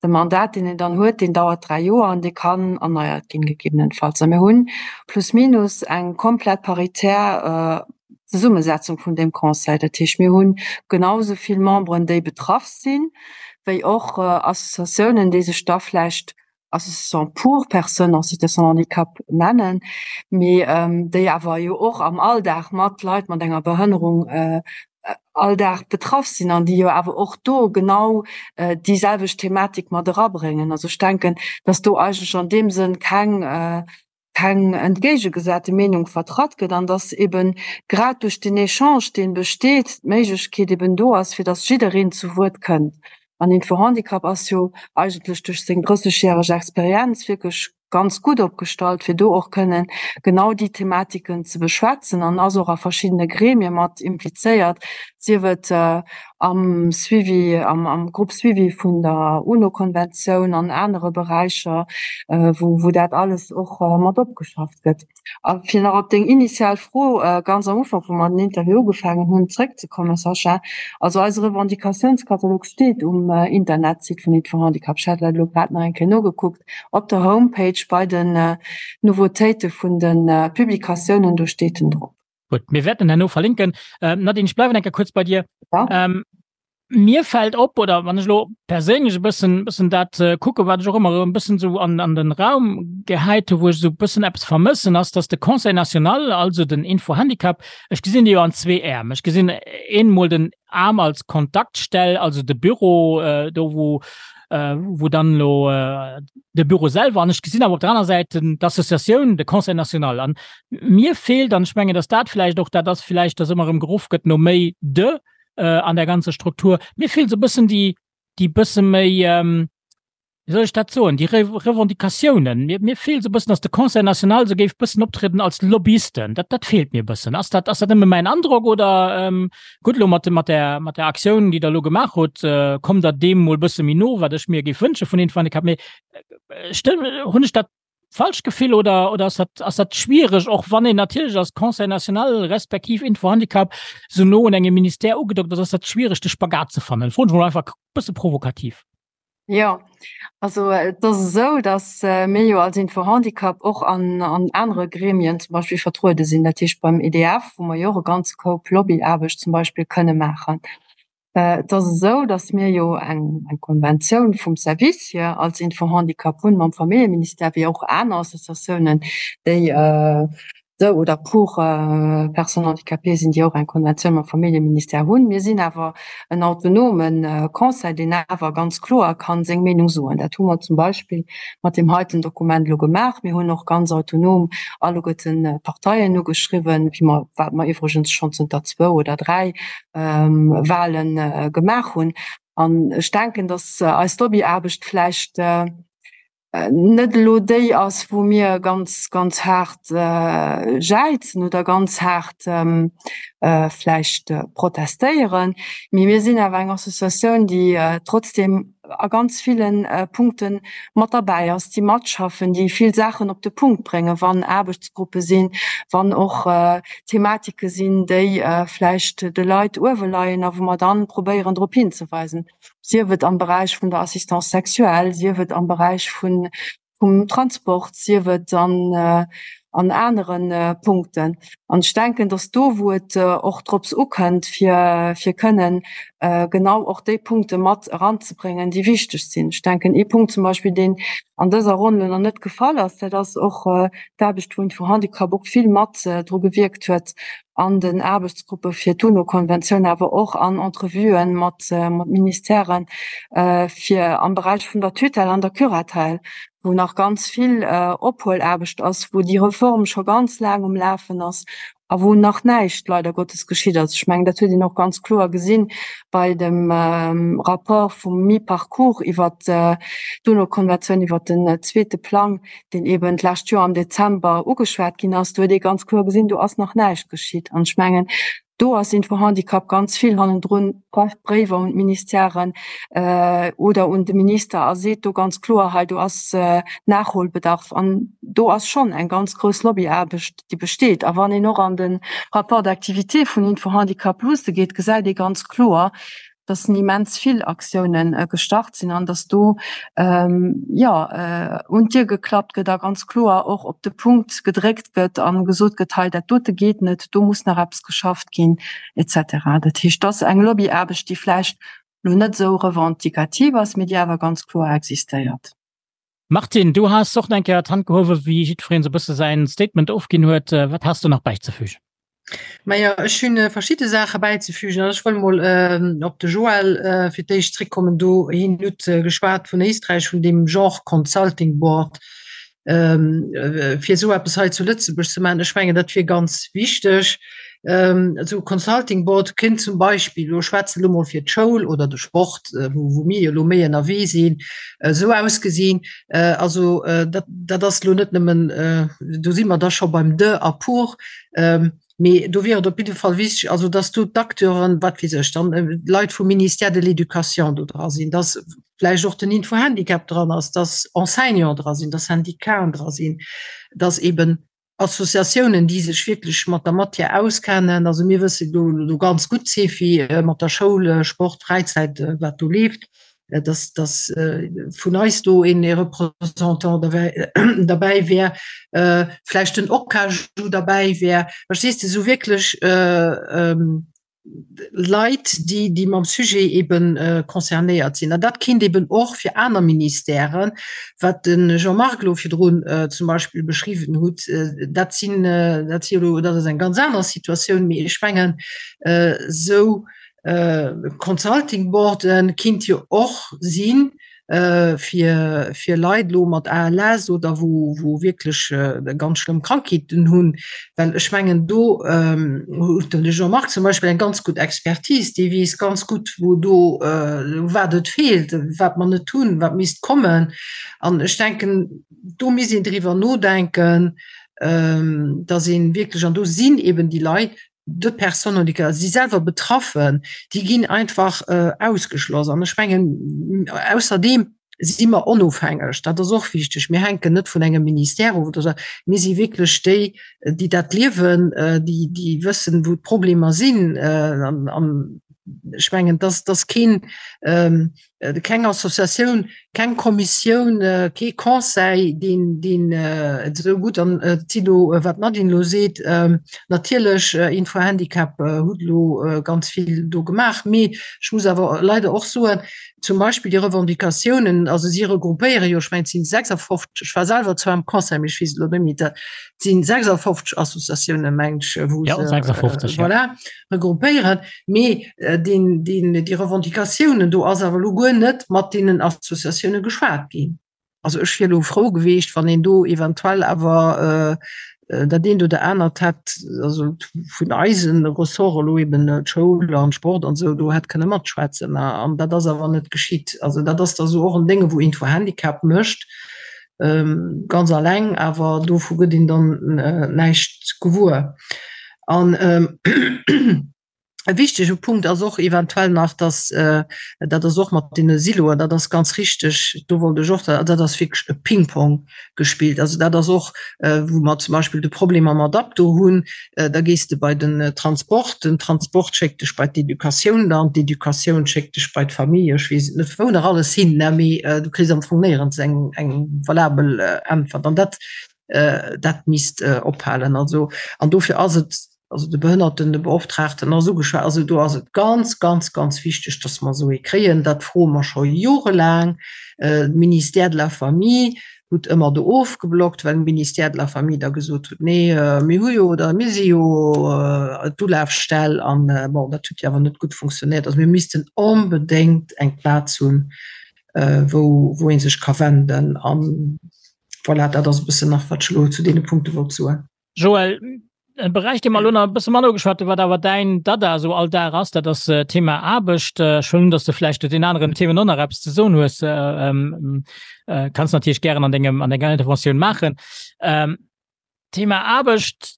de Mandat deen een dann huet, deen dauert 3 Joer an dee kann erneiert ginn gegebenenfalls. A mir hunn plus minus eng komplett paritär Zesummesetzung vun deem Conseil. Dat heescht mir hunn genau esou vill Memberen déi betraff sinn, wéi och Associatiounen déi sech da vläicht Association pour personnes en situation de handicap nennen, mee déi awer jo och am Alldag mat Leit mat enger Behënnerung all Dag betraff sinn an déi jo awer och do genau déi selwecht Thematik mat erabréngen. Also ech denken, dass do eigentlech an deem Sënn keng keng entgéigegesate Meenung vertratt gëtt an dass eben grad duerch den Echange, dee besteet, d'Méiglechkeet eben do ass, fir dass jiddereen zu Wuert kënnt. An Info-Handicap ass jo eigentlech duerch seng 30-järeg Experienz wierklech ganz gutt opgestallt, fir do och kënnen genau déi Thematiken ze beschwätzen an ass och a verschiddene Gremie mat implizéiert, sief et am Suivi, am Groupe suivi vun der UNO-Konventioun an anere Beräicher, wou, wou dat alles och mat opgeschafft gëtt. A fir nach op deng initial Fro ganz am Ufank, wou mer den Interview ugefaangen hunn, zrëckzekommen, Sascha, also eise Revendicatiounskatalog steet um Internetsite vun Aide for Handicap. Ech hat dat elo grad nach eng Kéier nogekuckt, op der Homepage bei den Nouveautéite vun de Publikatiounen, do steet en drop. Gutt, mir wäerten herno verlinken. Ähm, Nadine, ich bleiwen enker kurz bei dir. Ja. Ähm, mir fällt op oder wann ech lo perséinlech e bëssen bëssen dat äh, kucke wat ech och ëmmer e bëssen so an, an den Raum gehäit hu, wou ech so bëssen eppes vermëssen ass, dass de Conseil national, also den Info-Handicap, ech gesinn déi jo an zwee Äerm. Ech gesinn eenmol den Aarm als Kontaktstell, also de Büro, äh, do wou äh, wou dann lo äh, de Büro selwer an ech gesinn awer op der aner Säit d'Associatioun, de Conseil national. An mir feelt, an ech mengen, dass dat vläicht och dat ass, vläicht, dass ëmmer erëm geruff gëtt no méi de äh, an der ganzer Struktur, mir feelt esou e bëssen déi, déi bësse méi, ähm, Wéi soll ech dat soen, déi Revendicatiounen, mir, mir feelt esou e bëssen, datt de Conseil national esou géif bëssen optrieden als Lobbyisten. Dat, dat feelt mir e bëssen. Ass dat, ass dat nëmme mäin Androck oder, ähm, gutt, elo mat de, mat där, mat där Aktioun, déi Der elo gemaach hutt, äh, kommt Der deem mol bësse méi no, wat ech mir géif wënsche vun Info-Handicap. Mee stëmm, hunn ech dat falscht Gefill oder, oder ass dat, ass dat schwiereg, och wann een natierlech als Conseil national respektiv Info-Handicap esou no un engem Ministère ugedockt ass, ass dat schwiereg, de Spagat ze fannen? Froen ech mol einfach e bësse provokativ. Jo, also et ass esou, datt mir jo als Info-Handicap och an an anere Gremien zum Beispill vertruede sinn, dat heescht beim EDF, wou mer jo och e ganze Koup Lobbyaarbecht zum Beispill kënne maachen. Et ass esou, datt mir jo eng eng Konventioun vum Service hier als Info-Handicap hunn mam Familljeministère, wéi och aner Associatiounen, déi de oder pour personnes handicapées sinn, déi och eng Konventioun mam Familljeministère hunn. Mir sinn awer en autonome Conseil, deen awer ganz kloer ka seng Meenung soen. Dat hu mer zum Beispill mat deem heiten Dokument elo gemaach. Mir hunn och ganz autonom alleguerten d'Parteien ugeschriwwen, wéi mer, wat mer iwwregens schonn zënter zwou oder dräi Wahlen gemaach hunn. An ech denken, dass eis Lobbyaarbecht vläicht net elo déi ass, wou mir ganz, ganz haart jäizen oder ganz haart vläicht protestéieren, mee mir sinn awer eng Associatioun, déi trotzdem a ganz ville Punkte mat derbäi ass, déi matschaffen, déi vill Saachen op de Punkt bréngen, wann Aarbechtsgruppe sinn, wann och Thematike sinn, déi vläicht de Leit uewe leien a wou mer dann probéieren drop hinzeweisen. sief et am Beräich vun der Assistance sexuelle, sief et am Beräich vun, vum Transport, sief et an, an anere Punkten. An ech denken, dass do, wou et och drops ukënnt, fir, fir kënnen genau och déi Punkte mat eranzebréngen, déi wichteg sinn. Ech denken, ee Punkt zum Beispill, deen an dëser Ronn elo nach net gefall ass, dat ass och d'Aarbecht, wou Info-Handicap och vill mat dru gewierkt huet, an den Aarbechtsgruppe fir d'UNO-Konventioun, awer och an Entrevuen mat Ministèren, fir am Beräich vun der Tutelle an der Curatelle, wou nach ganz vill Ophuelaarbecht ass, wou déi Reform scho ganz laang um Lafen ass a wou nach näischt leider Gottes geschitt ass. Ech mengen, dat huet een och ganz kloer gesinn bei dem Rapport vum Mi-Parcours iwwert d'UNO-Konventioun, iwwert den zweete Plang, deen eben d'lescht Joer am Dezember ugeschwat ginn ass, do huet ee ganz kloer gesinn, do ass nach näischt geschitt. An ech mengen, do ass Info-Handicap ganz vill hannendrun, schreift Bréiwer un d'Ministèren oder un de Minister a seet do ganz kloer, hei do ass Nachholbedarf. An do ass schonn eng ganz grouss Lobbyaarbecht, déi besteet. A wann een och an de Rapport d'activité vun Info-Handicap luusse geet, gesäit ee ganz kloer, dass immens vill Aktiounen gestart sinn an dass do jo un d'Dier geklappt gëtt a ganz kloer och op de Punkt gedréckt gëtt a gesot gëtt, hei dat dote geet net, do muss nach eppes geschafft ginn et cetera. Dat heescht, dass eng Lobbyaarbecht, déi vläicht elo net esou revendikativ ass, mee déi awer ganz kloer existéiert. Martine, du has och nach eng Kéier d'Hand gehuewen, wéi jiddwereen esou e bësse säin Statement ofginn huet. Wat has du nach bäizefügen? Majo, ech hunn verschidde Saache bäizefügen. Also ech wëll mol op de Joël fir d'éischt zréckkommen. Do hien huet geschwat vun Éisträich, vun deem Genre Consulting Board, fir esou eppes hei zu Lëtzebuerg ze maachen. Ech mengen, dat wier ganz wichteg. Esou e Consulting Board kéint zum Beispill, elo schwätze elo mol fir d'Schoul oder de Sport, wou mir jo elo méi ënnerwee sinn, esou ausgesinn. Also dat, dat ass elo net nëmmen, do si mer da scho beim de a pour, mee do wier et op jidde Fall wichteg, also dass do d'Acteuren, wat weess ech, dann d'Leit vum Ministère de l'Éducation do dra sinn, dass vläicht och den Info-Handicap dran ass, dass Enseignants dra sinn, dass Syndicaten dra sinn, dass eben Associatiounen, déi sech wierklech mat der Matière auskennen. Also mir wësse do do ganz gutt, Cefi, mat der Schoul, Sport, Fräizäit, wat do leeft, dass dass vun eis do een ee Représentant derbäi derbäi wär, vläicht den OCAJU derbäi wär. Verstees de, esou wierklech Leit, déi, déi mam Sujet eben concernéiert sinn. An dat kinnt eben och fir aner Ministèren, wat de Jean-Marc elo virdrun zum Beispill beschriwwen hutt, dat sinn, dat si elo, dat ass eng ganz aner Situatioun, mee ech mengen, esou Consulting Boarde kinnt jo och sinn. fir, fir Leit elo mat ALS oder wou, wou wierklech ganz schlëmm Krankheeten hunn, well ech mengen do huet den Jean-Marc zum Beispill eng ganz gutt Expertise, dee weess ganz gutt, wou do, wat et feelt, wat mer net hunn, wat misst kommen. An ech denken, do misst een driwwer nodenken, dass ee wierklech, an do sinn eben déi Leit, de Personnes handicapées, si selwer betraffen, déi ginn einfach ausgeschloss. An ech mengen, ausserdeem si mer onofhängeg, dat ass och wichteg. Mir hänken net vun engem Ministère of oder esou. Mir si wierklech déi, déi dat liewen, déi, déi wëssen, wou d'Problemer sinn. An ech mengen, dass, dass keen, keng Associatioun, keng Kommissioun, kee Conseil, deen, deen et esou gutt, an et si elo, wat d'Nadine elo seet, natierlech Info-Handicap hutt elo ganz vill do gemaach, mee ech muss awer leider och soen, zum Beispill déi Revendicatiounen, also si regroupéiere jo, ech mengen et sinn 56, ech war selwer zwar am Conseil, mee ech weess et elo net méi, et sinn 56 Associatiounen, mengen ech, wou se, 56, voilà, regroupéieren, mee deen, deen, déi Revendicatiounen, do ass awer elo guer net mat deenen Associatioune geschwat ginn. Also ech wier elo frou gewiescht, wann een do eventuell awer dat eent oder anert hätt, also vun eise Ressorte elo eben d'Schoul an Sport an esou, do hätt kënne matschwätzen. An dat ass awer net geschitt. Also dat ass da sou och en Dénge wou Info-Handicap mécht, ganz alleng, awer dovu gëtt een dann näischt gewuer. An E wichtege Punkt ass och eventuell nach, dass, dat ass och mat deene Siloen, dat ass ganz richtig, do wollt ech och, dat ass wierklech e Pingpong gespillt. Also dat ass och, wou mer zum Beispill de Problem mam Adapto hunn, da gees de bei den Transport, den Transport schéckt dech bei d'Educatioun dann, d'Educatioun schéckt dech bei d'Famille, ech weess et net wou nach alles hin, ne, mee du kriss am Fong néierens eng, eng valabel Äntwert. An dat, dat misst ophalen. Also, an dofir ass et also de Behënnertenbeoptraagten ass ugeschwat, also do ass et ganz, ganz, ganz wichteg, dass mer esou ee kréien. Dat froe mer scho jorelaang. De Ministère de la Famille huet ëmmer do ofgeblockt, well de Ministère de la Famille da gesot huet, nee, mir hu jo oder mir si jo d'Ulafstell an bon, dat huet jo awer net gutt funktionéiert. Also mir missten onbedéngt eng Plaz hunn, wou, wou ee sech ka wenden. An voilà, dat ass e bëssen nach, wat ech elo zu deene Punkte wollt soen. Joël, e Beräich, dee mer elo nach e bësse manner ugeschwat hunn, wat awer däin Dada esou all Dag ass, dat ass d'Thema Aarbecht. Ech huelen un, datt s de vläicht zu den aneren Themen och nach eppes ze soen hues. Kanns natierlech gären an dengem, an denger Interventioun maachen. Thema Aarbecht,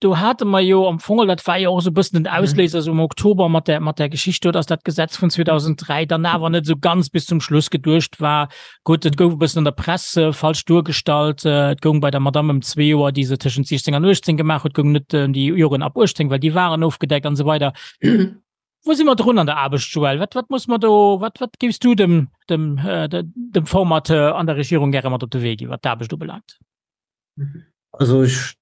do hate mer jo am Fong, dat war jo och esou e bëssen den Ausléiser esou am Oktober mat där, mat där Geschicht do, datt dat Gesetz vun 2003 dann awer net esou ganz bis zum Schluss geduecht war. Gutt, et gouf e bëssen an der Press falsch duergestallt. Et goung bei der Madamm ëm zwee Joer, déi se tëschent 16 an 18 gemaach huet, goung net ëm déi Joren ab 18, well déi waren ofgedeckt an esou weider. Wou si mer drun an der Aarbecht, Joël? Wat, wat muss mer do, wat, wat géifs du dem, dem, dem Formateur an der Regierung gäre mat op de Wee ginn, wat d'Aarbecht ubelaangt? Also ech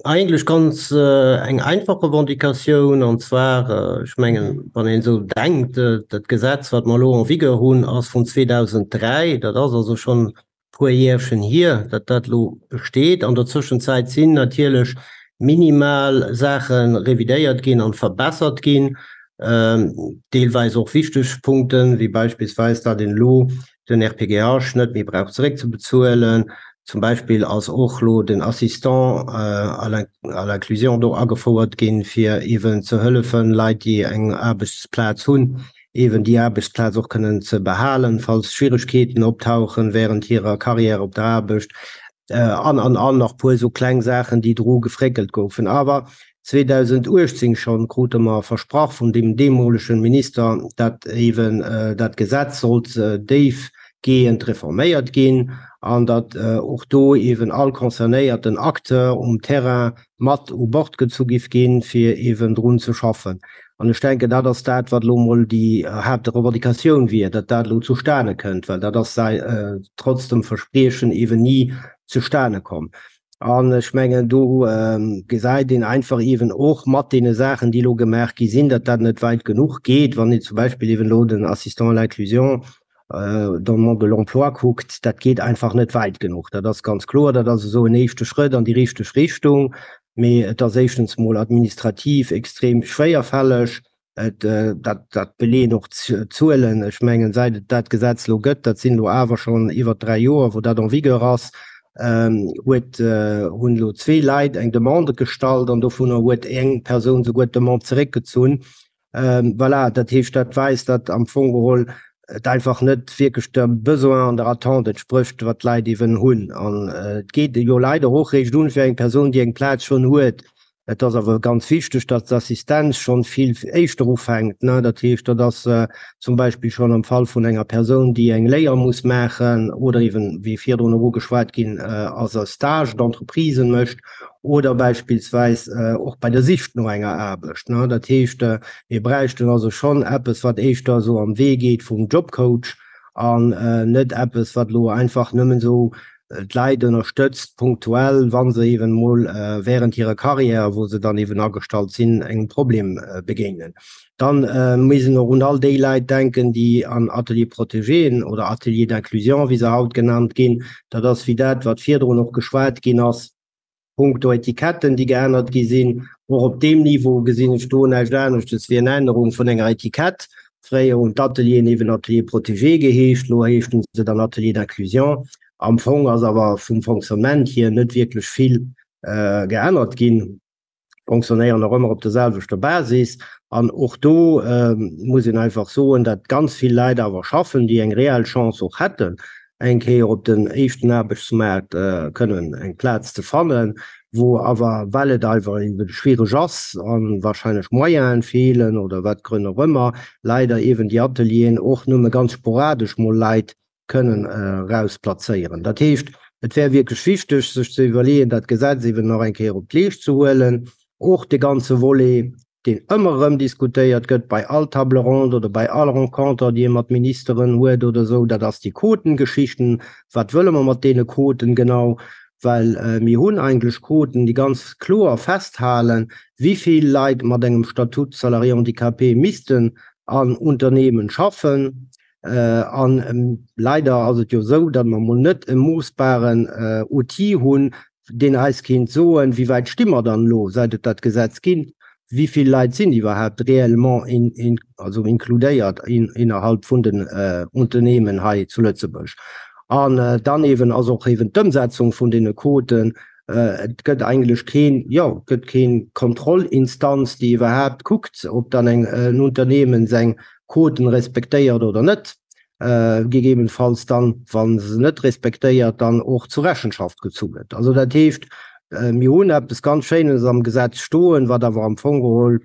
Eigentlech ganz eng einfach Revendicatioun, an zwar, ech mengen, wann een esou denkt, dat Gesetz, wat mer elo en vigueur hunn, ass vun 2003, dat ass also schonn e puer Järchen hier, datt dat elo besteet. An der Zwischenzäit sinn natierlech minimal Saache revidéiert ginn an verbessert ginn, deelweis och wichteg Punkten, wéi beispillsweis, datt een elo den RPGH net méi brauch zeréckzebezuelen. Zum Beispill ass och elo den Assistant à l'inclusion do agefouert ginn, fir eeben ze hëllefen, Leit, déi eng Aarbechtsplaz hunn, eeben déi Aarbechtsplaz och kënnen ze behalen, falls Schwieregkeeten optauchen während hirer Carrière op der Aarbecht. An, an, an nach puer esou kleng Saachen, déi dru gefréckelt goufen. Awer 2018 schonn krute mer versprach vun deem deemolegen Minister, dat eeben dat Gesetz sollt déifgehend reforméiert ginn an datt och do eeben all concernéierten Acteur um Terrain mat u Bord gezu giff ginn, fir eeben drun ze schaffen. An ech denken, dat ass dat, wat elo emol déi Haaptrevendicatioun wier, datt dat elo zustane kënnt, well dat ass trotz dem Verspriechen eeben ni zustane komm. An ech mengen, do gesäit een einfach eeben och mat deene Saachen, déi elo gemaach gi sinn, datt dat net wäit genuch geet. Wann een zum Beispill eeben elo den Assistant à l'inclusion dans le monde de l'emploi kuckt, dat geet einfach net wäit genuch. Dat ass ganz kloer. Dat ass esou en éischte Schrëtt an déi richteg Richtung, mee et ass éischtens emol administrativ extrem schwéierfälleg. Et, dat, dat beleeën och d'Zuelen. Ech mengen, säit et dat Gesetz elo gëtt, dat sinn elo awer schonn iwwer 3 Joer, wou dat en vigueur ass, huet, hunn elo zwee Leit eng Demande gestallt an dovunner huet eng Persoun souguer d'Demande zeréckgezunn. Voilà, dat heescht, dat weist, datt am Fong geholl et einfach net wierklech dem Besoin an der Attente entsprécht, wat d'Leit eeben hunn. An et geet jo leider och réischt un fir eng Persoun, déi eng Plaz schonn huet. Et ass awer ganz wichteg, datt d'Assistenz schonn vill éischter ufänkt. Dat heescht, dat ass zum Beispill schonn am Fall vun enger Persoun, déi eng Léier muss maachen oder eeben, wéi virdrun och ugeschwat ginn ass, e Stage d'entreprise mécht oder beispillsweis och bei der Sich no enger Aarbecht. Dat heescht, mir bräichten also schonn eppes, wat éischter esou am Wee geet vum Jobcoach an net eppes, wat elo einfach nëmmen esou d'Leit ënnerstëtzt punktuell, wa se eeben emol während hirer Carrière, wou se dann eeben agestallt sinn, engem Problem begéinen. Dann muss een och un all déi Leit denken, déi an Ateliers protégéen oder Ateliers d'inclusion, wéi se haut genannt ginn, dat ass wéi dat, wat virdrun och geschwat ginn ass, Punkto Etiketten, déi geännert gi sinn. Och op deem Niveau gesinn ech do näischt aneschtes wéi eng Ännerung vun enger Etikett. Fréier hunn d'Atelieren eeben Ateliers protégés geheescht, elo heeschten se dann Ateliers d'inclusion. Am Fong ass awer vum Fonctionnement hier net wierklech vill geännert ginn. Fonctionnéieren nach ëmmer op der selwechter Basis. An och do muss een einfach soen, datt ganz vill Leit awer schaffen, déi eng reell Chance och hätten, eng Kéier op den éischten Aarbechtsmaart kënnen eng Plaz ze fannen, wou awer, well et einfach eeben schwiereg ass a wahrscheinlech Moyenen feelen oder wat Grënn och ëmmer, leider eeben déi Atelieren och nëmme ganz sporadesch mol Leit kënnen eraus plazéieren. Dat heescht, et wär wierklech wichteg, sech ze iwwerleeën, dat Gesetz eeben nach eng Kéier op d'Leescht ze huelen, och de ganze Volet, deen ëmmer erëm diskutéiert gëtt bei all Table ronde oder bei all Renconter, déi ee mat Ministeren huet oder esou, dat ass déi Quotengeschichten. Wat wëlle mer mat deene Quoten genau? Well mir hunn eigentlech Quoten, déi ganz kloer festhalen, wéi vill Leit mat engem Statut salarié handicapé missten an Unternehmen schaffen. An leider ass et jo esou, datt mer emol net e moossbaren Outil hunn, deen eis kéint soen, wéi wäit sti mer dann elo, säit et dat Gesetz ginn, wéi vill Leit sinn iwwerhaapt réellement also inkludéiert innerhalb vun den Unternehmen hei zu Lëtzebuerg. An dann eeben ass och eeben d'Ëmsetzung vun deene Quoten, et gëtt eigentlech keen, jo, et gëtt keen Kontrollinstanz, déi iwwerhaapt kuckt, ob dann eng en Unternehmen seng Quoten respektéiert oder net, gegebenfalls dann, wa se net respektéiert, dann och zu Rechenschaft gezu gëtt. Also dat heescht, mir hunn eppes ganz Schéines am Gesetz stoen, wat awer am Fong geholl,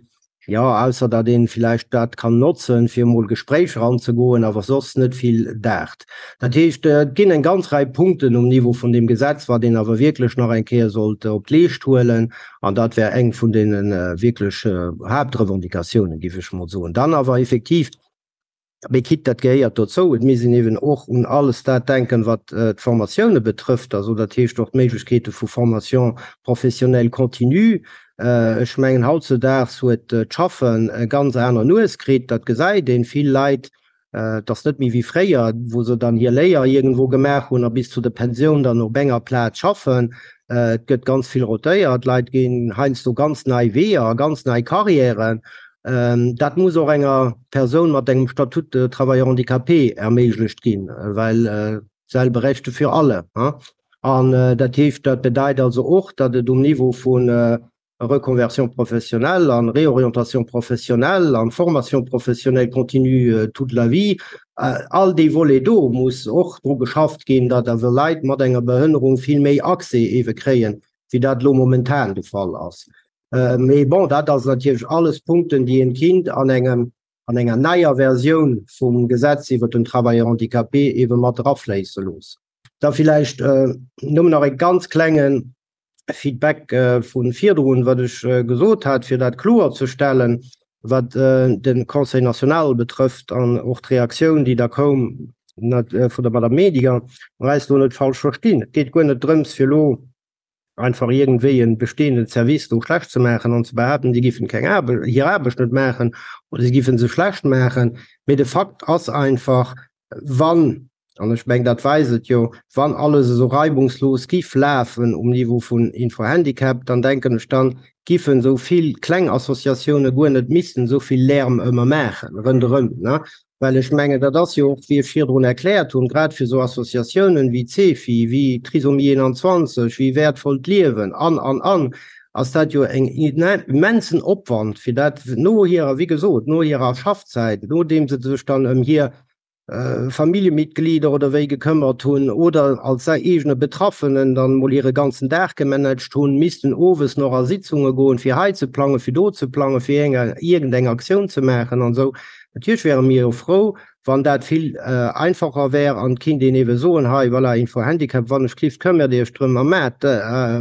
jo, ausser datt ee villäicht dat kann notzen, fir emol Gespréich eranzegoen, awer soss net vill daacht. Dat heescht, et ginn eng ganz Rei Punkten um Niveau vun deem Gesetz, wat een awer wierklech nach eng Kéier sollt op d'Leescht huelen. An dat wär eng vun deene wierklech Haaptrevendicatiounen, géif ech emol soen. Dann awer effektiv, mee quitte, dat gehéiert dozou, et misst een eeben och un alles dat denken, wat d'Formatioune betrëfft, also dat heescht och d'Méiglechkeete vu Formation professionnelle continue. Ech mengen, hautzedaags huet d'Schaffen e ganz aner Nues kritt, dat gesäit een. Vill Leit Et ass net méi wéi fréier, wou se dann hir Léier iergendwou gemaach hunn a bis zu der Pensioun dann op enger Plaz schaffen. Et gëtt ganz vill rotéiert, d'Leit ginn heiansdo ganz nei Weeër a ganz nei Carrièren. Dat muss och enger Persoun mat engem Statut de travailleur handicapé erméiglecht ginn, well selbe Rechte für alle. An dat heescht, dat bedeit also och, datt et um Niveau vun Reconversion professionnelle an Réorientation professionnelle an Formation professionnelle continue toute la vie, all déi Volet do muss och dru geschafft ginn, datt awer Leit mat enger Behënnerung vill méi Accès ewe kréien, wéi dat elo momentan de Fall ass. Mee bon, dat ass natierlech alles Punkten, déi een kinnt an engem, an enger neier Versioun vum Gesetz iwwert den Travailleur handicapé ewe mat erafléisse loossen. Da villäicht nëmmen nach e ganz klengen Feedback vu virdrun, wat ech gesot hat, fir dat kloerzestellen, wat de Conseil national betrëfft an och d'Reaktioun, déi da koum vun der Madame Medinger. Mer eis do net falsch verstinn. Et geet guer net drëms, fir elo einfach iergendwéi e bestehenden Service do schlecht ze maachen an ze behaapten, déi géifen keng Aarbecht, hir Aarbecht net maachen oder si géife se schlecht maachen. Mee de Fakt ass einfach, wann. An ech mengen, dat weist et jo, wann alles esou reibungslos giff lafen um Niveau vun Info-Handicap, dann denken ech, dann giffen esou vill kleng Associatioune guer net missen esou vill Lärm ëmmer maachen ronderëm, ne? Well ech mengen, dat ass jo och, wéi ech virdrun erkläert hunn, grad fir esou Associatiounen wéi d'CEFI, wéi Trisomie 21, wéi Wäertvollt Liewen an, an, an, ass dat jo en immensen Opwand, fir dat no hirer, wéi gesot, no hirer Schaffzäit, nodeem se sech dann ëm hir Familljemitglieder oder wéi gekëmmert hunn oder als eegene Betraffenen dann mol hire ganzen Dag gemanagt hunn, missten owes nach a Sitzunge goen, fir hei ze plangen, fir do ze plangen, fir iergendeng Aktioun ze maachen an esou. Natierlech wäre mir jo frou, wann dat vill einfacher wär an et kinnt een eebe soen, hei voilà, Info-Handicap, wann ech klift, këmmert Iech drëm a maacht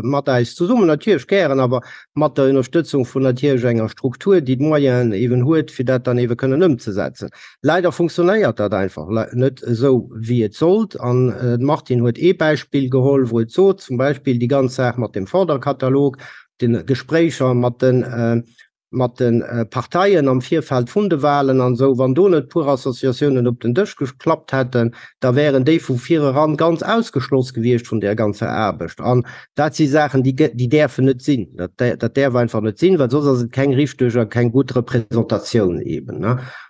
mat eis zesummen, natierlech gären, awer mat der Ënnerstëtzung vun natierlech enger Struktur, déi d'Moyenen eeben huet, fir dat dann eebe kënnen ëmzesetzen. Leider funktionéiert dat einfach net esou, wéi et sollt. An d'Martine huet ee Beispill geholl, wou et sot, zum Beispill déi ganz Saach mat dem Forderkatalog, de Gespréicher mat de mat de Parteien am Virfeld vun de Wahlen an esou. Wann do net puer Associatiounen op den Dësch geklappt hätten, da wären déi vu vireran ganz ausgeschloss gewiescht vun där ganzer Aarbecht. An dat si Saachen, déi déi däerfen net sinn. Dat dat däerf einfach net sinn, well soss ass et keng richteg a keng gutt Représentatioun eben.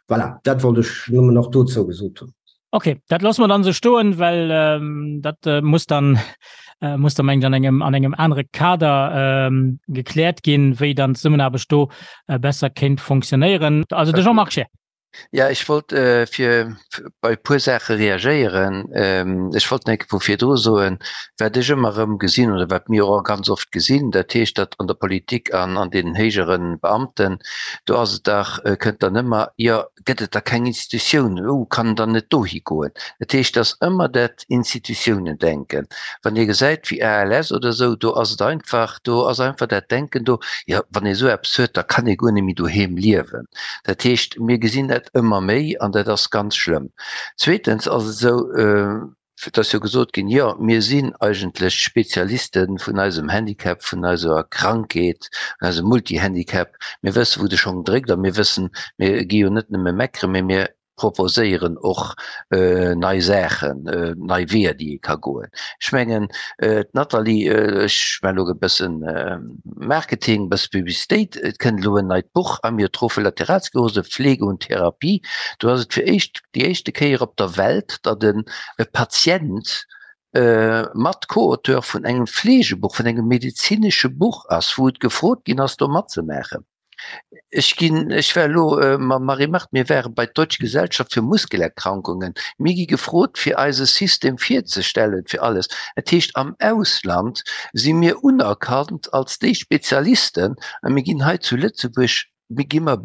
Voilà, dat wollt ech nëmmen nach dozou gesot hunn. Okay, dat loosse mer dann esou stoen, well ähm, dat äh, muss dann äh, muss dann mengt an engem an engem anere Kader ähm, gekläert ginn, wéi dann d'Zesummenaarbecht do äh, besser kéint fonctionnéieren. Also de Jean-Marc Scheer. Ja, ech wollt äh, fir bei e puer Saache reagéieren. Ähm, ech wollt nach vu virdru soen, wat ech ëmmer erëm gesinn oder wat mir och ganz oft gesinn, dat heescht, datt an der Politik an an den héijere Beamten, do ass et dach, äh, kënnt dann ëmmer, jo, gëtt et da keng Institutioun, oh, kann en dann net dohi goen? Dat heescht, et ass ëmmer dat Institutiounen-Denken. Wann ee gesäit wéi ALS oder esou, do ass et einfach, do ass einfach dat Denken do, jo, wann ee esou eppes huet, da kann ee guer net méi doheem liewen. Dat heescht, mir gesinn dat ëmmer méi an dat ass ganz schlëmm. Zweetens ass et esou, Et ass jo gesot ginn, jo, mir sinn eigentlech d'Spezialiste vun eisem Handicap, vun eiser Krankheet, vun eisem Multihandicap. Mir wëssen, wou de Schong dréckt a mir wëssen, mir gi jo net nëmme meckeren, mee mir proposéieren och nei Saachen, nei Weeër, déi ee ka goen. Ech mengen, d'Nathalie, ech maachen elo e bëssen Marketing, e bësse Publicitéit, et kënnt elo en neit Buch, Amyotrophe Lateralsklerose, Pflege und Therapie. Do ass et fir d'éischt, déi éischte Kéier op der Welt, datt en e Patient mat Co-Auteur vun engem Fleegebuch, vun engem medezinesche Buch ass, wou et gefrot ginn ass, do matzemaachen. Ech ginn, ech war elo mam Marie-Marthe, mir ware bei d'Deutsche Gesellschaft für Muskelerkrankungen, mir gi gefrot, fir eise System virzestellen, fir alles. Dat heescht, am Ausland si mir unerkannt als déi Spezialisten a mir ginn hei zu Lëtzebuerg gi mer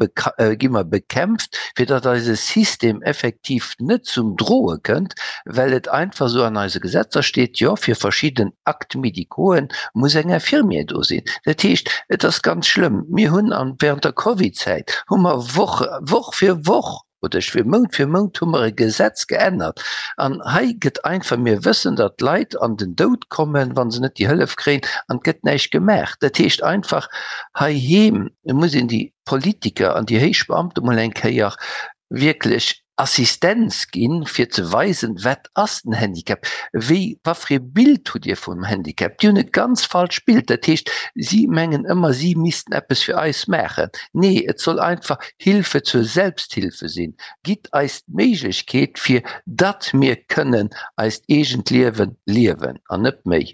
gi mer bekämpft, fir datt eise System effektiv net zum Droe kënnt, well et einfach esou an eise Gesetzer steet, jo, fir verschidden Actes médicauxen muss eng Infirmière do sinn. Dat heescht, et ass ganz schlëmm. Mir hunn an während der Covidzäit hu mer Woch Woch fir Woch, oder ech fir Mount fir Mount hu mer e Gesetz geännert an hei gëtt einfach, mir wëssen, datt d'Leit an den Doud kommen, wa se net déi Hëllef kréien an et gëtt näischt gemaach. Dat heescht einfach, heiheem muss een déi Politiker an déi héich Beamte mol eng Kéier wierklech Assistenz ginn, fir ze weisen, wat ass den Handicap, wéi, wat fir ee Bild hutt Dir vum Handicap. Déi hunn e ganz falscht Bild. Dat heescht, si mengen ëmmer, si missten eppes fir eis maachen. Nee, et soll einfach Hilfe zur Selbsthilfe sinn. Gitt eis d'Méiglechkeet, fir datt mir kënnen eist eegent Liewe liewen an net méi.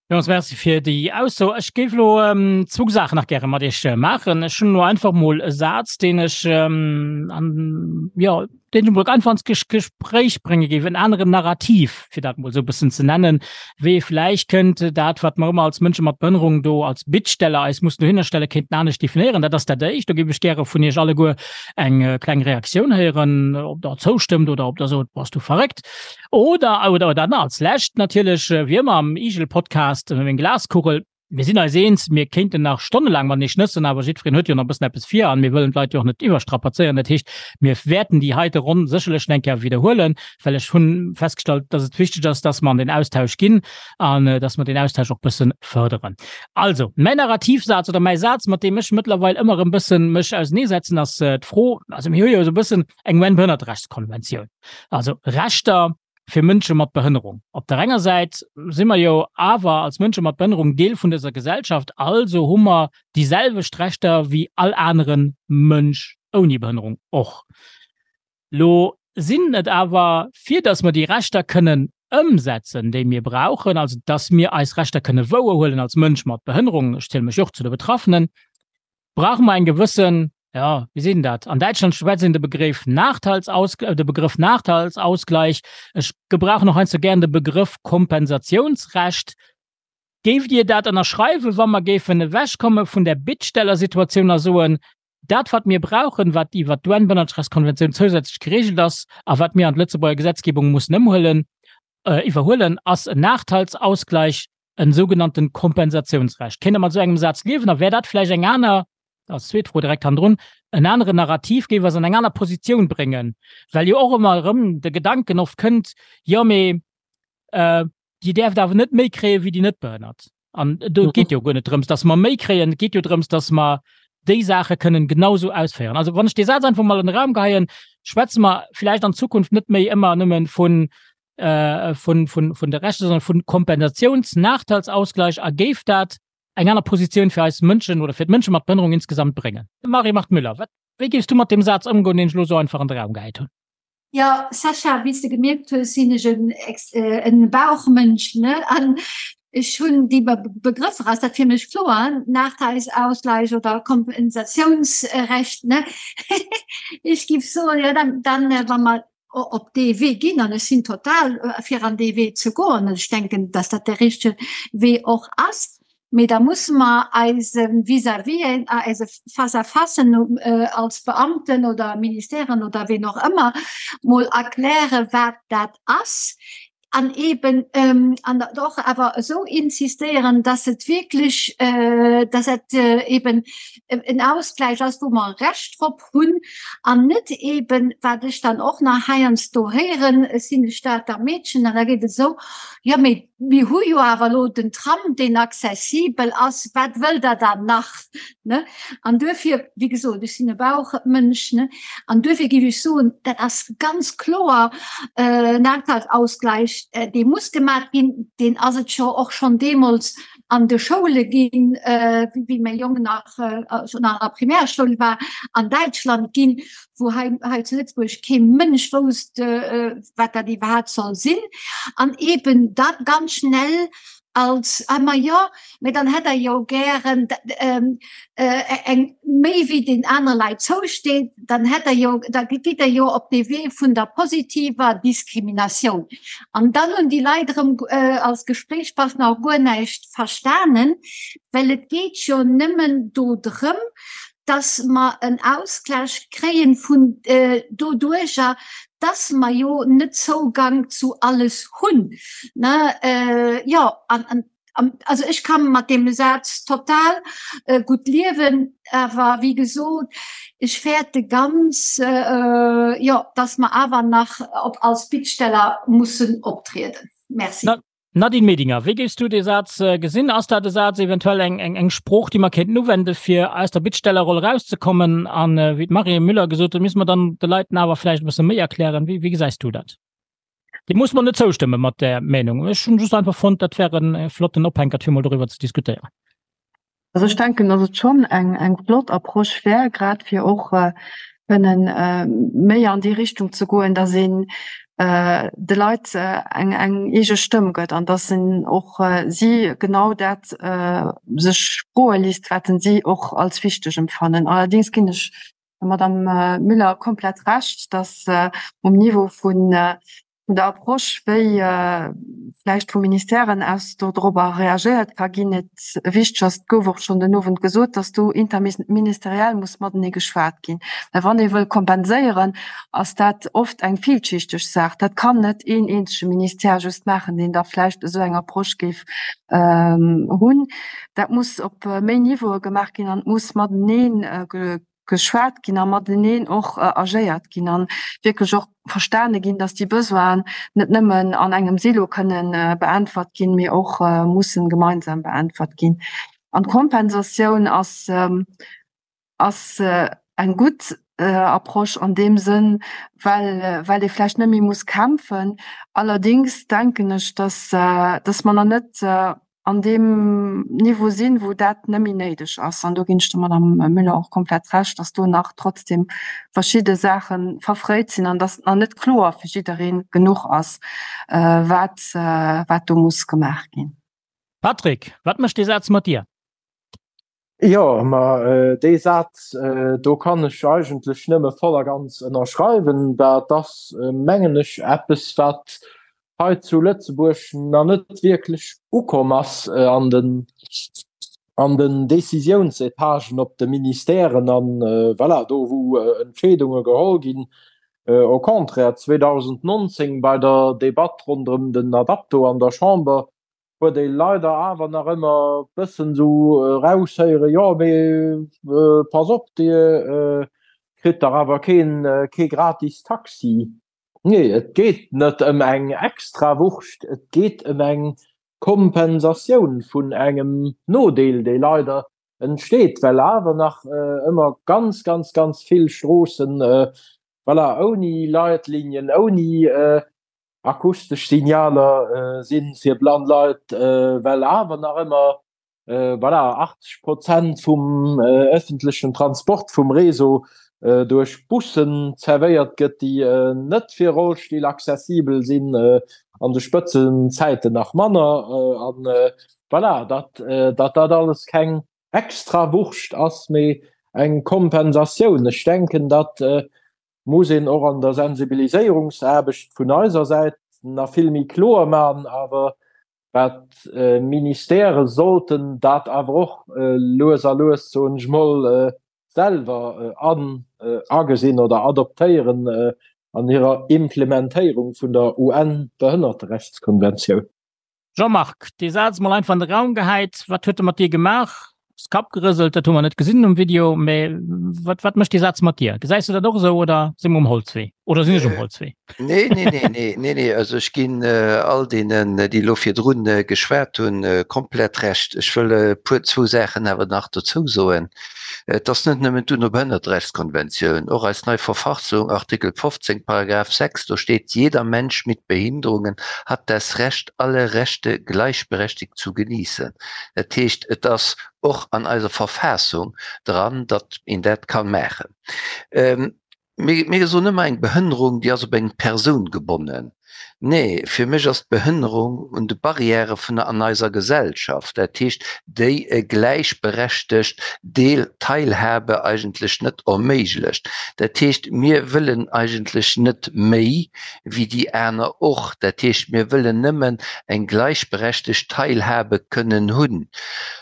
Villmools Merci fir déi Ausso. Ech géif elo zwou Saachen nach gäre mat Iech maachen. Ech hunn elo einfach mol e Saz, deen ech an, jo, deen ech emol einfach ans Gespréich brénge géif, en aneren Narrativ, fir dat mol esou e bëssen ze nennen, wéi ee vläicht kënnt dat, wat mer ëmmer als Mënsche mat Behënnerung do als Bittsteller eis mussen dohinner stellen, kéinten anescht definéieren. Dat ass dat Éischt. Do géif ech gäre vun Iech alleguer eng kleng Reaktioun héieren, ob Der zoustëmmt oder ob Der sot, Bass du verréckt? Oder, oder, oder dann als Lescht natierlech, wéi ëmmer am Igel-Podcast, meng Glaskugel. Mir sinn eis eens, mir kéinten nach stonnelaang matenee schnëssen, awer jiddwereen huet jo nach e bëssen eppes vir an mir wëllen d'Leit jo och net iwwerstrapazéieren. Dat heescht, mir wäerten déi heite Ronn sécherlech nach eng Kéier widderhuelen, well ech hu festgestallt, dass et wichteg ass, dass mer an den Austausch ginn an dass mer deen Austausch och bësse fërderen. Also, mäin Narrativsaz oder mäi Saz, mat deem ech mëttlerweil ëmmer erëm bëssen mech auseneesetzen, ass d'Fro, also mir hu jo esou e bëssen eng UN-Behënnerterechtskonventioun, also Rechter. fir Mënsche mat Behënnerung. Op der enger Säit si mer jo awer als Mënsche mat Behënnerung Deel vun dëser Gesellschaft, also hu mer déi selwecht Rechter wéi all anere Mënsch ouni Behënnerung och. Lo sinn et awer, fir datt mer déi Rechter kënnen ëmsetzen, déi mir brauchen, also datt mir eis Rechter kënne wouerhuelen als Mënsch mat Behënnerung, ech ziele mech och zu de Betraffenen, brauche mer eng gewëssen, jo, wéi seet een dat, an Däitschland schwätzt een de Begréff Nachteilsaus-, de Begrëff Nachteilsausgleich, ech gebrauchen och heiansdo gären de Begrëff Kompensatiounsrecht. Géift Dir dat ënnerschreiwen, wa mer géifen ewechkomme vun där Bittstellersituatioun a soen, Dat, wat mir brauchen, wat iwwert d'UN-Bënnertrechtskonventioun zousätzlech geregelt ass a wat mir an d'Lëtzebuerger Gesetzgebung mussen ëmhuelen, iwwerhuelen, ass en Nachteilsausgleich, en sougenannten Kompensatiounsrecht. Kéint Der mat esou engem Saz liewen? A wär dat vläicht eng aner, als zweet Fro direkt hannendrun, en aneren Narrativ, géif eis an eng aner Positioun bréngen? Well jo och ëmmer erëm de Gedanken oft kënnt, jo mee Dir däerft awer net méi kréie wéi déi Netbehënnert. An do geet jo guer net drëms, datt mer méi kréien, et geet jo drëms, datt mer déi Saache kënnen genausou ausféieren. Also wann ech dee Saz einfach mol an de Raum geheien, schwätze mer vläicht an Zukunft net méi ëmmer nëmme vun, vun, vun, vun de Rechter, sondern vun Kompensatiouns-Nachteilsausgleich a géif dat eng aner Positioun fir eis Mënschen oder fir d'Mënsche mat Behënnerung insgesamt bréngen. Marie-Marthe Müller, wat, wéi géifs du mat deem Saz ëmgoen, deen ech elo esou einfach an de Raum gehäit hunn? Jo, Sascha, wéi s de gemierkt hues, sinn ech en Bauchmënsch, ne? An ech hunn déi Begrëffer, ass dat fir mech kloer, Nachteilsausgleich oder Kompensatiounsrecht, ne? Ech giff soen, jo, dann, dann, wa mer op dee Wee ginn, an ech sinn total fir an dee Wee ze goen, an ech denken, dass dat de richtege Wee och ass, Mee da musse mer eise Vis-à-visen, eise Face-à-facen als Beamten oder Ministèren oder ween och ëmmer mol erklären, wat dat ass an eeben an och awer esou insistéieren, dass et wierklech, dass et eeben en Ausgleich ass, wou mer e Recht drop hunn an net eeben, wat ech dann och nach heiansdo héieren, ech sinn e Stater Meedchen an da geet et esou, jo mee Mir hu jo awer elo den Tram, deen accessibel ass, wat wëllt Der dann nach? Ne? An duerfir, wéi gesot, ech sinn e Bauchmënsch, ne, an duerfir géif ech soen, dat ass ganz kloer Nachteilsausgleich, dee muss gemaach ginn. Deen ass et jo och schonn deemools an de Schoule ginn, wéi mäi Jong nach schonn an der Primärschoul war, an Däitschland ginn, wou hei, hei zu Lëtzebuerg kee Mënsch wousst, wat dat iwwerhaapt soll sinn, an eben dat ganz schnell als, ah ma jo, mä dann hätt Der jo gären eng méi wéi den anere Leit zousteet, dann hätt Der jo, da gitt Der jo op dee Wee vun der positiver Diskriminatioun. An dann hunn déi Leit erëm als Gespréichspartner och guer näischt verstanen, well et geet jo nëmmen do drëm, dass mer en Ausgleich kréien vun doduercher, dass mer jo net Zougang zu alles hunn, ne? Jo, an, also ech ka mat deem Saz total gutt liewen, awer wéi gesot, ech fäerte ganz, jo, dass mer awer nach op als Bittsteller mussen optrieden. Merci. Nadine Medinger, wéi géifs du dee Saz gesinn? Ass dat e Saz, eventuell eng, eng, eng Sprooch, déi mer kéinten uwende fir aus der Bittstellerroll erauszekommen? An wéi d'Marie Müller gesot huet, misste mer dann de Leiten awer vläicht e bësse méi erklären. Wéi, wéi gesäis du dat? Dir musst mer net zoustëmme mat där Meenung. Ech hunn just einfach fonnt, dat wär e flotten Ophänkert fir mol doriwwer ze diskutéieren. Also ech denken, datt et schonn eng eng flott Approche wär, grad fir och kënnen méi an déi Richtung ze goen, datt een de Leit eng eng eege Stëmm gëtt an datt en och si genau dat sech froe léisst, wat en si och als wichteg empfannen. Allerdéngs ginn ech der Madame Müller komplett Recht, datt um Niveau vun vun der Approche, wéi vläicht vu Ministèren aus do dorobber reagéiert ka ginn, et wichteg ass, et gouf och schonn den Owend gesot, dass do interministeriell muss matenee geschwat ginn. Well wann ee wëll kompenséieren, ass dat oft eng villschichteg Saach. Dat kann net een eenzege Ministère just maachen, deen da vläicht esou eng Approche géif hunn. Dat muss op méi Niveaue gemaach ginn an et muss matenee geschwat ginn a mateneen och agéiert ginn an wierklech och verstane ginn, dass déi Besoinen net nëmmen an engem Silo kënnen beäntwert ginn, mee och mussen gemeinsam beäntwert ginn. An d'Kompensatioun ass ass eng gutt. Approche an deem Sënn, well, well ee vläicht net méi muss kämpfen. Allerdéngs denken ech, dass, dass mer nach net an deem Niveau sinn, wou dat net méi néideg ass. An do ginn ech der Madame Müller och komplett Recht, dass do nach trotzdem verschidde Saache verfréit sinn an dass nach net kloer fir jidderee genuch ass, wat, wat do muss gemaach ginn. Patrick, wat mécht dee Saz mat dir? Jo, ma dee Saz do kann ech eigentlech nëmme voll a ganz ënnerschreiwen. Dat ass, mengen ech, eppes, wat hei zu Lëtzebuerg nach net wierklech ukomm ass an den, an den Décisiounsetagen op de Ministèren an, voilà, do wou Entscheedunge geholl ginn. Au contraire, 2019 bei der Debatt ronderëm den Adapto an der Chamber huet ee leider awer nach ëmmer bëssen esou eraushéieren, jo mee pass op, Dir kritt dach awer keen, kee gratis Taxi. Nee, et geet net ëm eng Extrawurscht, et geet ëm eng Kompensatioun vun engem Nodeel, dee leider entsteet, well awer nach ëmmer ganz, ganz, ganz vill Stroossen, voilà, ouni Leitlinien, ouni Akustesch Signaler si fir blann Leit, well awer nach ëmmer voilà 80 Prozent vum ëffentlechen Transport vum Réseau duerch Bussen zerwéiert gëtt, déi net fir Rollstill accessibel sinn, an de Spëtzenzäiten nach manner. An voilà, datt dat alles keng Extrawurscht ass, mee eng Kompensatioun. Ech denken, datt muss een och an der Sensibiliséierungsaarbecht vun eiser Säit nach vill méi kloer maachen, awer wat d'Ministèrë sollten dat awer och lues a lues, soen ech mol, selwer an agesinn oder adoptéieren an hirer Implementéierung vun der UN-Behënnerterechtskonventioun. Jean-Marc, dee Saz mol einfach an de Raum gehäit, wat huet e mat dir gemaach? Hues Kapp gerëselt, dat hu mer net gesinn um Video, mä wat, wat mécht dee Saz mat dir? Gesäis du dat och esou oder si mer um Holzwee? Oder sinn ech um Holzwee? Nee, nee, nee, nee, nee, nee, also ech ginn all deenen, déi elo virdrun geschwat hunn, komplett Recht. Ech wëll e puer, zwou Saachen awer nach dozou soen. Et ass net nëmmen d'UNO-Behënnerterechtskonventioun, och eis nei Verfassung, Artikel 15, Paragraph 6, do steet, Jeder Mensch mit Behinderungen hat das Recht, alle Rechte gleichberechtigt zu genießen. Dat heescht, et ass och an eiser Verfassung dran, datt een dat ka maachen. Mir soen ëmmer, eng Behënnerung, déi ass op eng Persoun gebonnen. Nee, fir mech ass d'Behënnerung un de Barrièrë vun an eiser Gesellschaft, dat heescht, déi e gläichberechtegt Deel Teilhabe eigentlech net erméiglecht. Dat heescht, mir wëllen eigentlech net méi wéi déi aner och. Dat heescht, mir wëllen nëmmen eng gläichberechtegt Teilhabe kënnen hunn.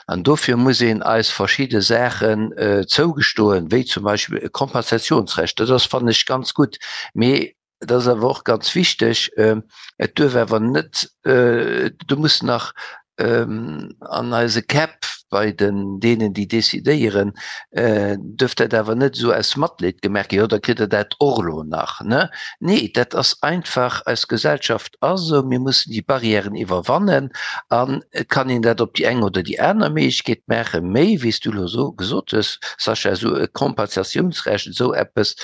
An dofir muss een eis verschidde Saachen zougestoen, wéi zum Beispill e Kompensationsrecht. Dat ass, fannen ech, ganz gutt. Mee et ass awer och ganz wichteg, et duerf awer net, do muss nach an eise Käpp bei den deenen, déi decidéieren, duerf dat awer net esou aus Matleed gemaach ginn, jo da kritt Der dat och elo nach, ne? Nee, dat ass einfach, eis Gesellschaft ass esou, mir mussen déi Barrièren iwwerwannen an et kann een dat op déi eng oder déi aner Méiglechkeet maachen, méi wéi s du elo esou gesot hues, Sascha, esou e Kompensatiounsrecht, esou eppes,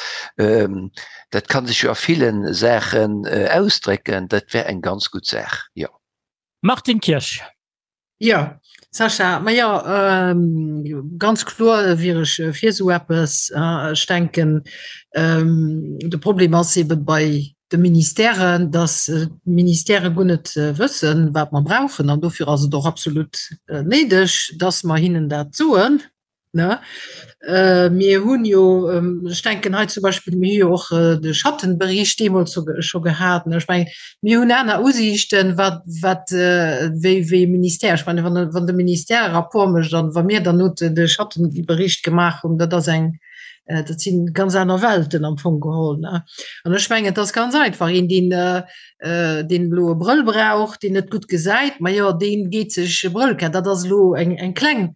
dat ka sech jo a ville Saachen ausdrécken, dat wär eng ganz gutt Saach, jo. Martine Kirsch. Jo, Sascha, ma jo, ganz kloer wier ech fir esou eppes. Ech denken, de Problem ass ebe bei de Ministèren, datt d'Ministèrë guer net wëssen, wat mer brauchen. An dofir ass et och absolut néideg, datt mer hinnen dat soen. Ne? Äh, mir hunn jo, ähm, ech denken hei zum Beispill, mir hu jo och äh, de Schattenbericht deemools so, scho gehat. Ne? Ech mengen, mir hunn aner Usiichten, wat, wat äh, wéi, wéi Ministère. Ech meine, wann, wann de Ministère e Rapport mécht an wa mir dann not de Schattenbericht gemaach hunn, dat ass eng, äh, dat sinn ganz aner Welten am Fong geholl. Ne? An ech mengen, et ass ganz einfach, een, deen, äh, äh, deen elo e Brëll brauch, deen net gutt gesäit, ma jo, deen geet sech e Brëll kafen. Dat ass elo eng, eng kleng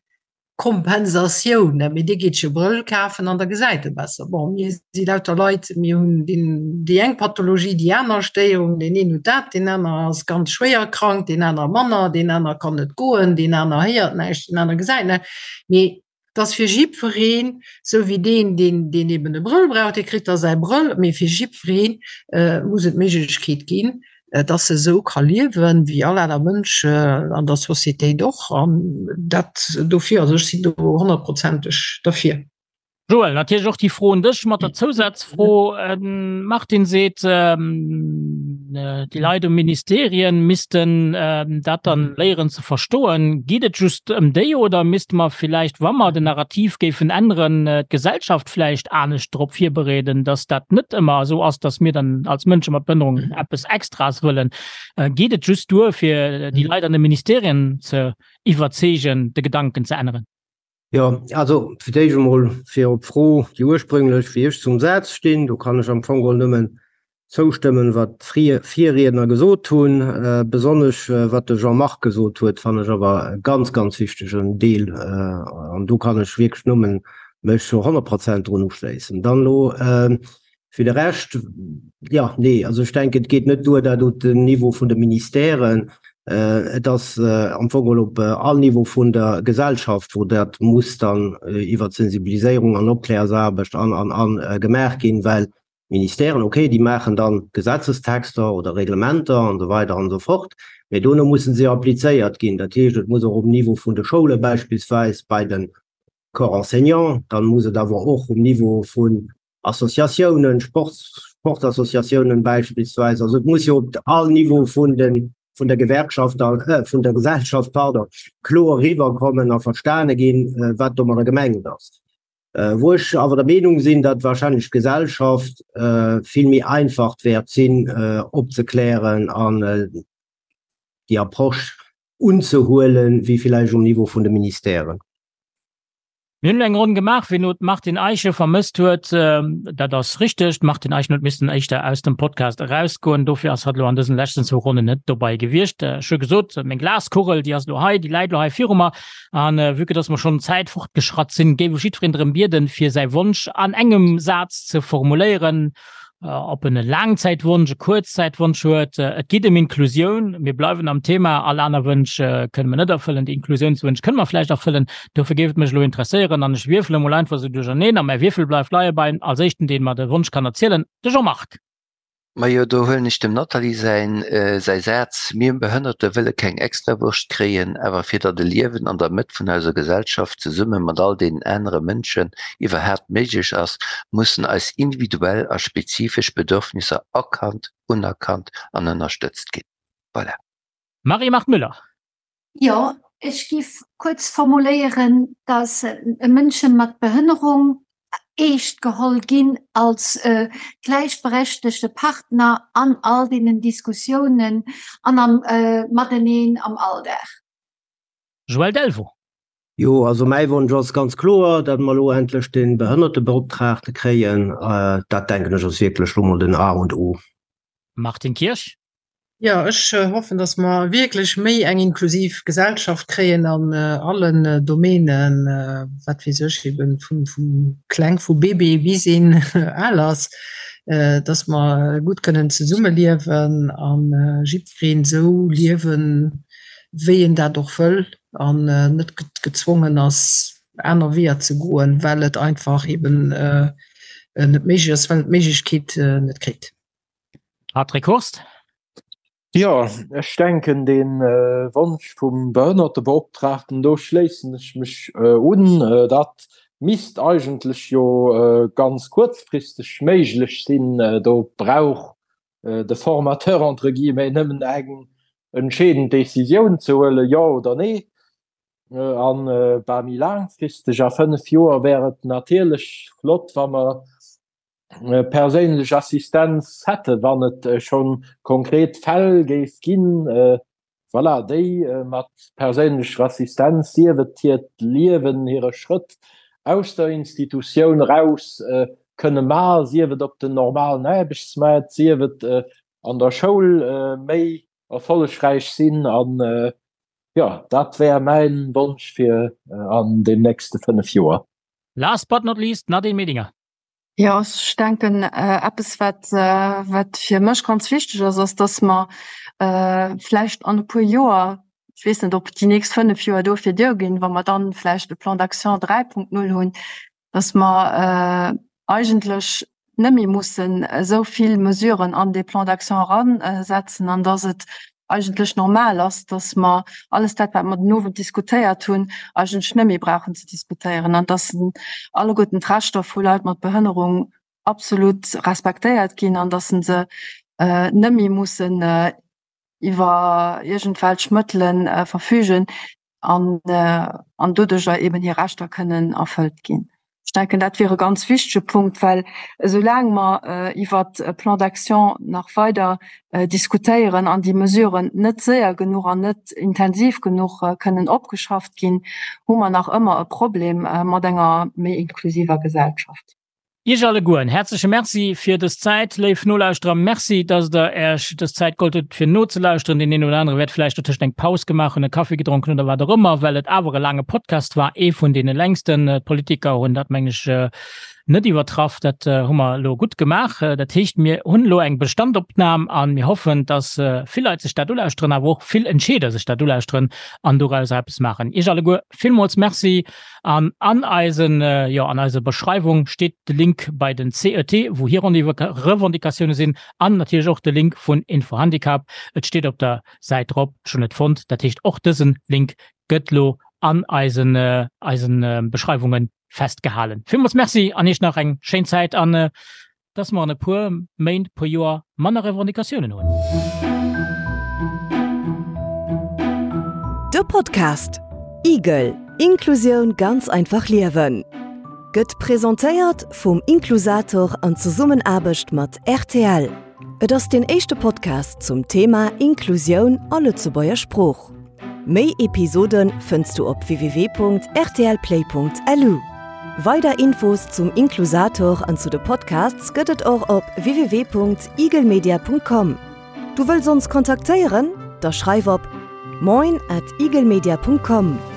Kompensatioun, mee dee geet sech e Brëll kafen an da gesäit e besser. Bon, mir si lauter Leit, mir hunn deen, déi eng Pathologie, déi aner Stéierung, deen een huet dat, deen aner ass ganz schwéier krank, deen aner manner, deen aner kann net goen, deen aner héiert näischt, deen aner gesäit näischt. Mee. Dass fir jiddwereen, sou wéi deen, deen, deen eben e Brëll brauch, dee kritt da säi Brëll, mee fir jiddweree muss et d'Méiglechkeet ginn, dass e sou ka liewen, wéi all aner Mënsch an der Societéit och. An dat dofir, also ech sinn do honnertprozenteg derfir. Joël, natierlech och déi Fro un dech mat der Zousazfro. Martin seet, déi Leit um Ministerien missten dat dann léieren ze verstoen. Geet et just ëm déi oder misste mer villäicht, wa mer den Narrativ géifen änneren, d'Gesellschaft vläicht anescht drop virbereeden, datt dat net ëmmer esou ass, datt mir dann als Mënsche mat Behënnerung eppes Extraes wëllen? Geet et just duer, fir déi Leit an de Ministerien ze iwwerzeegen, de Gedanken ze änneren? Jo, also fir d'éischt emol fir op d'Fro, déi ursprünglech, wéi ech zum Saz stinn, do kann ech am Fong geholl nëmmen zoustëmmen, wat d'Virriedner gesot hunn. Besonnesch wat de Jean-Marc gesot huet, fannen ech awer e ganz, ganz wichtegen Deel an do kann ech wierklech nëmmen mech zu 100 Prozent drun uschléissen. Dann elo Fir de Rescht, jo, nee, also ech denken, et geet net duer, dat op den Niveau vun de Ministèren. Et ass am Fong geholl op all Niveau vun der Gesellschaft, wou dat muss dann iwwert Sensibiliséierung an Opklärsaarbecht an, an, an gemaach ginn, well d'Ministèren, okay, déi maachen dann Gesetzestexter oder Reglementer an esou weider an esou fort, mä dono mussen se applizéiert ginn. Dat heescht, et muss och um Niveau vun de Schoule beispillsweis bei de Corps enseignant, dann muss et awer och um Niveau vun Associatiounen, Sportassociatiounen beispillsweis. Also et muss jo op all Niveau vun den, vun der Gewerkschaft, vun der Gesellschaft, pardon, kloer eriwwerkommen a verstane ginn, wat domadder gemengt ass. Wou ech awer der Meenung sinn, datt wahrscheinlech d'Gesellschaft vill méi einfach wäert sinn opzeklären an déi Approche unzehuelen, wéi villäicht um Niveau vun de Ministèren. Mir hunn elo eng Ronn gemaach, wien elo d'Martine Eischen vermësst huet, dat ass richteg. D'Martine Eischen huet missen éischter aus dem Podcast erausgoen, dofir ass hatt elo an dësen leschten zwou Ronnen net dobei gewiescht. Ech hu gesot, meng Glaskugel, déi ass elo hei, déi läit elo hei viru mer. An vue que dass mer schonn Zäit fortgeschratt sinn, géif ech jiddwereen drëm bieden, fir säi Wonsch an engem Saz ze formuléieren. Ob en e Laangzäitwonsch, e Kuerzzäitwonsch huet. Et geet ëm Inklusioun. Mir bleiwen am Thema. All aner Wënsch kënne mer net erfëllen. Déi Inklusiounswënsch kënne mer vläicht erfëllen. Dofir géif et mech elo interesséieren, an ech wierfele mol einfach esou duercherneen, a mäi Wierfel bleift leie beim als éischten, deen mer de Wonsch kann erzielen, de Jean-Marc. Majo, do huelen ech dem Nathalie säin säi Saz, Mir Behënnerte wëlle keng Extrawurscht kréien, awer fir datt e Liewen an der Mëtt vun eiser Gesellschaft zesumme mat all deenen anere Mënschen iwwerhaapt méiglech ass, mussen eis individuell a spezifesch Bedürfnisser erkannt, unerkannt an ënnerstëtzt ginn. Voilà. Marie-Marthe Müller. Jo, ech giff kuerz formuléieren, dass Mënsche mat Behënnerung eescht geholl ginn als gläichberechtegte Partner an all deenen Diskussiounen an am Mateneen am Alldag. Joël Delvaux. Jo, also mäi Wonsch ass ganz kloer, datt mer elo endlech de Behënnertebeoptraagte kréien. Dat, denken ech, ass wierklech elo mol den A und O. Martine Kirsch. Jo, ech hoffen, datt mer wierklech méi eng inklusiv Gesellschaft kréien an allen Domänen, wat weess ech, eben vu kleng, vu Bébé bis een al ass, datt mer gutt kënnen zesummeliewen a jiddwereen esou liewen, wéi en dat och wëll an net gezwongen ass, aner Weeër ze goen, well et einfach eben net méiglech ass, well en d'Méiglechkeet net kritt. Patrick Hurst. Jo, ech denken dee Wonsch vum Behënnertebeoptraagten, do schléissen ech mech un. Dat misst eigentlech jo ganz kuerzfristeg méiglech sinn. Do brauch de Formateur entre guillemets nëmmen eng entscheedend Décisioun ze huelen, jo oder nee. An bah, méi laangfristeg, a 5 Joer, wär et natierlech flott, wa mer perséinlech Assistenz hätte, wann et schonn konkret Fäll géif ginn, voilà, déi mat perséinlecher Assistenz, sief et hiert Liewen, hire Schrëtt aus der Institutioun eraus kënne maachen, sief et op den normalen Aarbechtsmaart, sief et an der Schoul méi erfollegräich sinn. An jo, dat wär mäin Wonsch fir an den nächste 5 Joer. Last but not least, Nadine Medinger. Jo, ech denken eppes wat wat fir mech ganz wichteg ass, ass dass mer vläicht an e puer Joer. Ech weess net, ob déi nächst 5 Joer dofir duerginn, wa mer dann vläicht e Plan d'action 3.0 hunn, dass mer eigentlech net méi mussen esou vill Mesuren an dee Plan d'action eransetzen an dass et eigentlech normal ass, dass mer alles dat, wat mer den Owend diskutéiert hunn, eigentlech net méi brauchen ze diskutéieren an dass alleguerten d'Rechter vu Leit mat Behënnerung absolut respektéiert ginn an dass se net méi mussen iwwer iergendwelch Mëttele verfügen an, an doduercher eben hir Rechter kënnen erfëllt ginn. Ech denken, dat wier e ganz wichtege Punkt, well esoulaang mer iwwert e Plan d'action nach weider diskutéieren an déi Mesuren net séier genuch an net intensiv genuch kënnen opgeschafft ginn, hu mer nach ëmmer e Problem mat enger méi inklusiver Gesellschaft. Iech alleguer en häerzleche Merci fir dës Zäit. Léif Nolauschterer, Merci, dass Der Äech dës Zäit geholl hutt, fir nozelauschteren. Deen een oder anere wäert vläicht dotëscht eng Paus gemaach hunn, e Kaffi gedronk hunn oder wat och ëmmer, well et awer e laange Podcast war, ee vun deene längsten. D'Politiker hunn dat, mengen ech, net iwwertraff. Dat hu mer elo gutt gemaach. Dat heescht, mir hunn elo eng Bestandopnam a mir hoffen, dass vill Leit sech dat ulauschteren, awer och vill Entscheeder sech dat ulauschteren an dorauser eppes maachen. Iech alleguer villmools Merci. An an eisen, jo, an eiser Beschreiwung steet de Link bei den CET, wou hir Revendicatioune sinn, an natierlech och de Link vun Infohandicap. Et steet op der Säit drop, ech hunn et fonnt. Dat heescht, och dësen Link gëtt lo an eisen, eisen Beschreiwunge festgehalen. Villmools Merci an Iech nach eng schéin Zäit an dass mer an e puer Méint, puer Joer manner Revendicatiounen hunn. De Podcast Igel, Inklusioun ganz einfach liewen gëtt presentéiert vum Inklusator an Zesummenaarbecht mat rtl. Et ass deen éischte Podcast zum Thema Inklusioun a Lëtzebuerger Sprooch. Méi Episode fënns du op www.rtlplay.lu. Weider Infos zum Inklusator an zu de Podcasts gëtt et och op www.igelmedia.com. Du wëlls ons kontaktéieren? Da schreif op moin at igelmedia.com.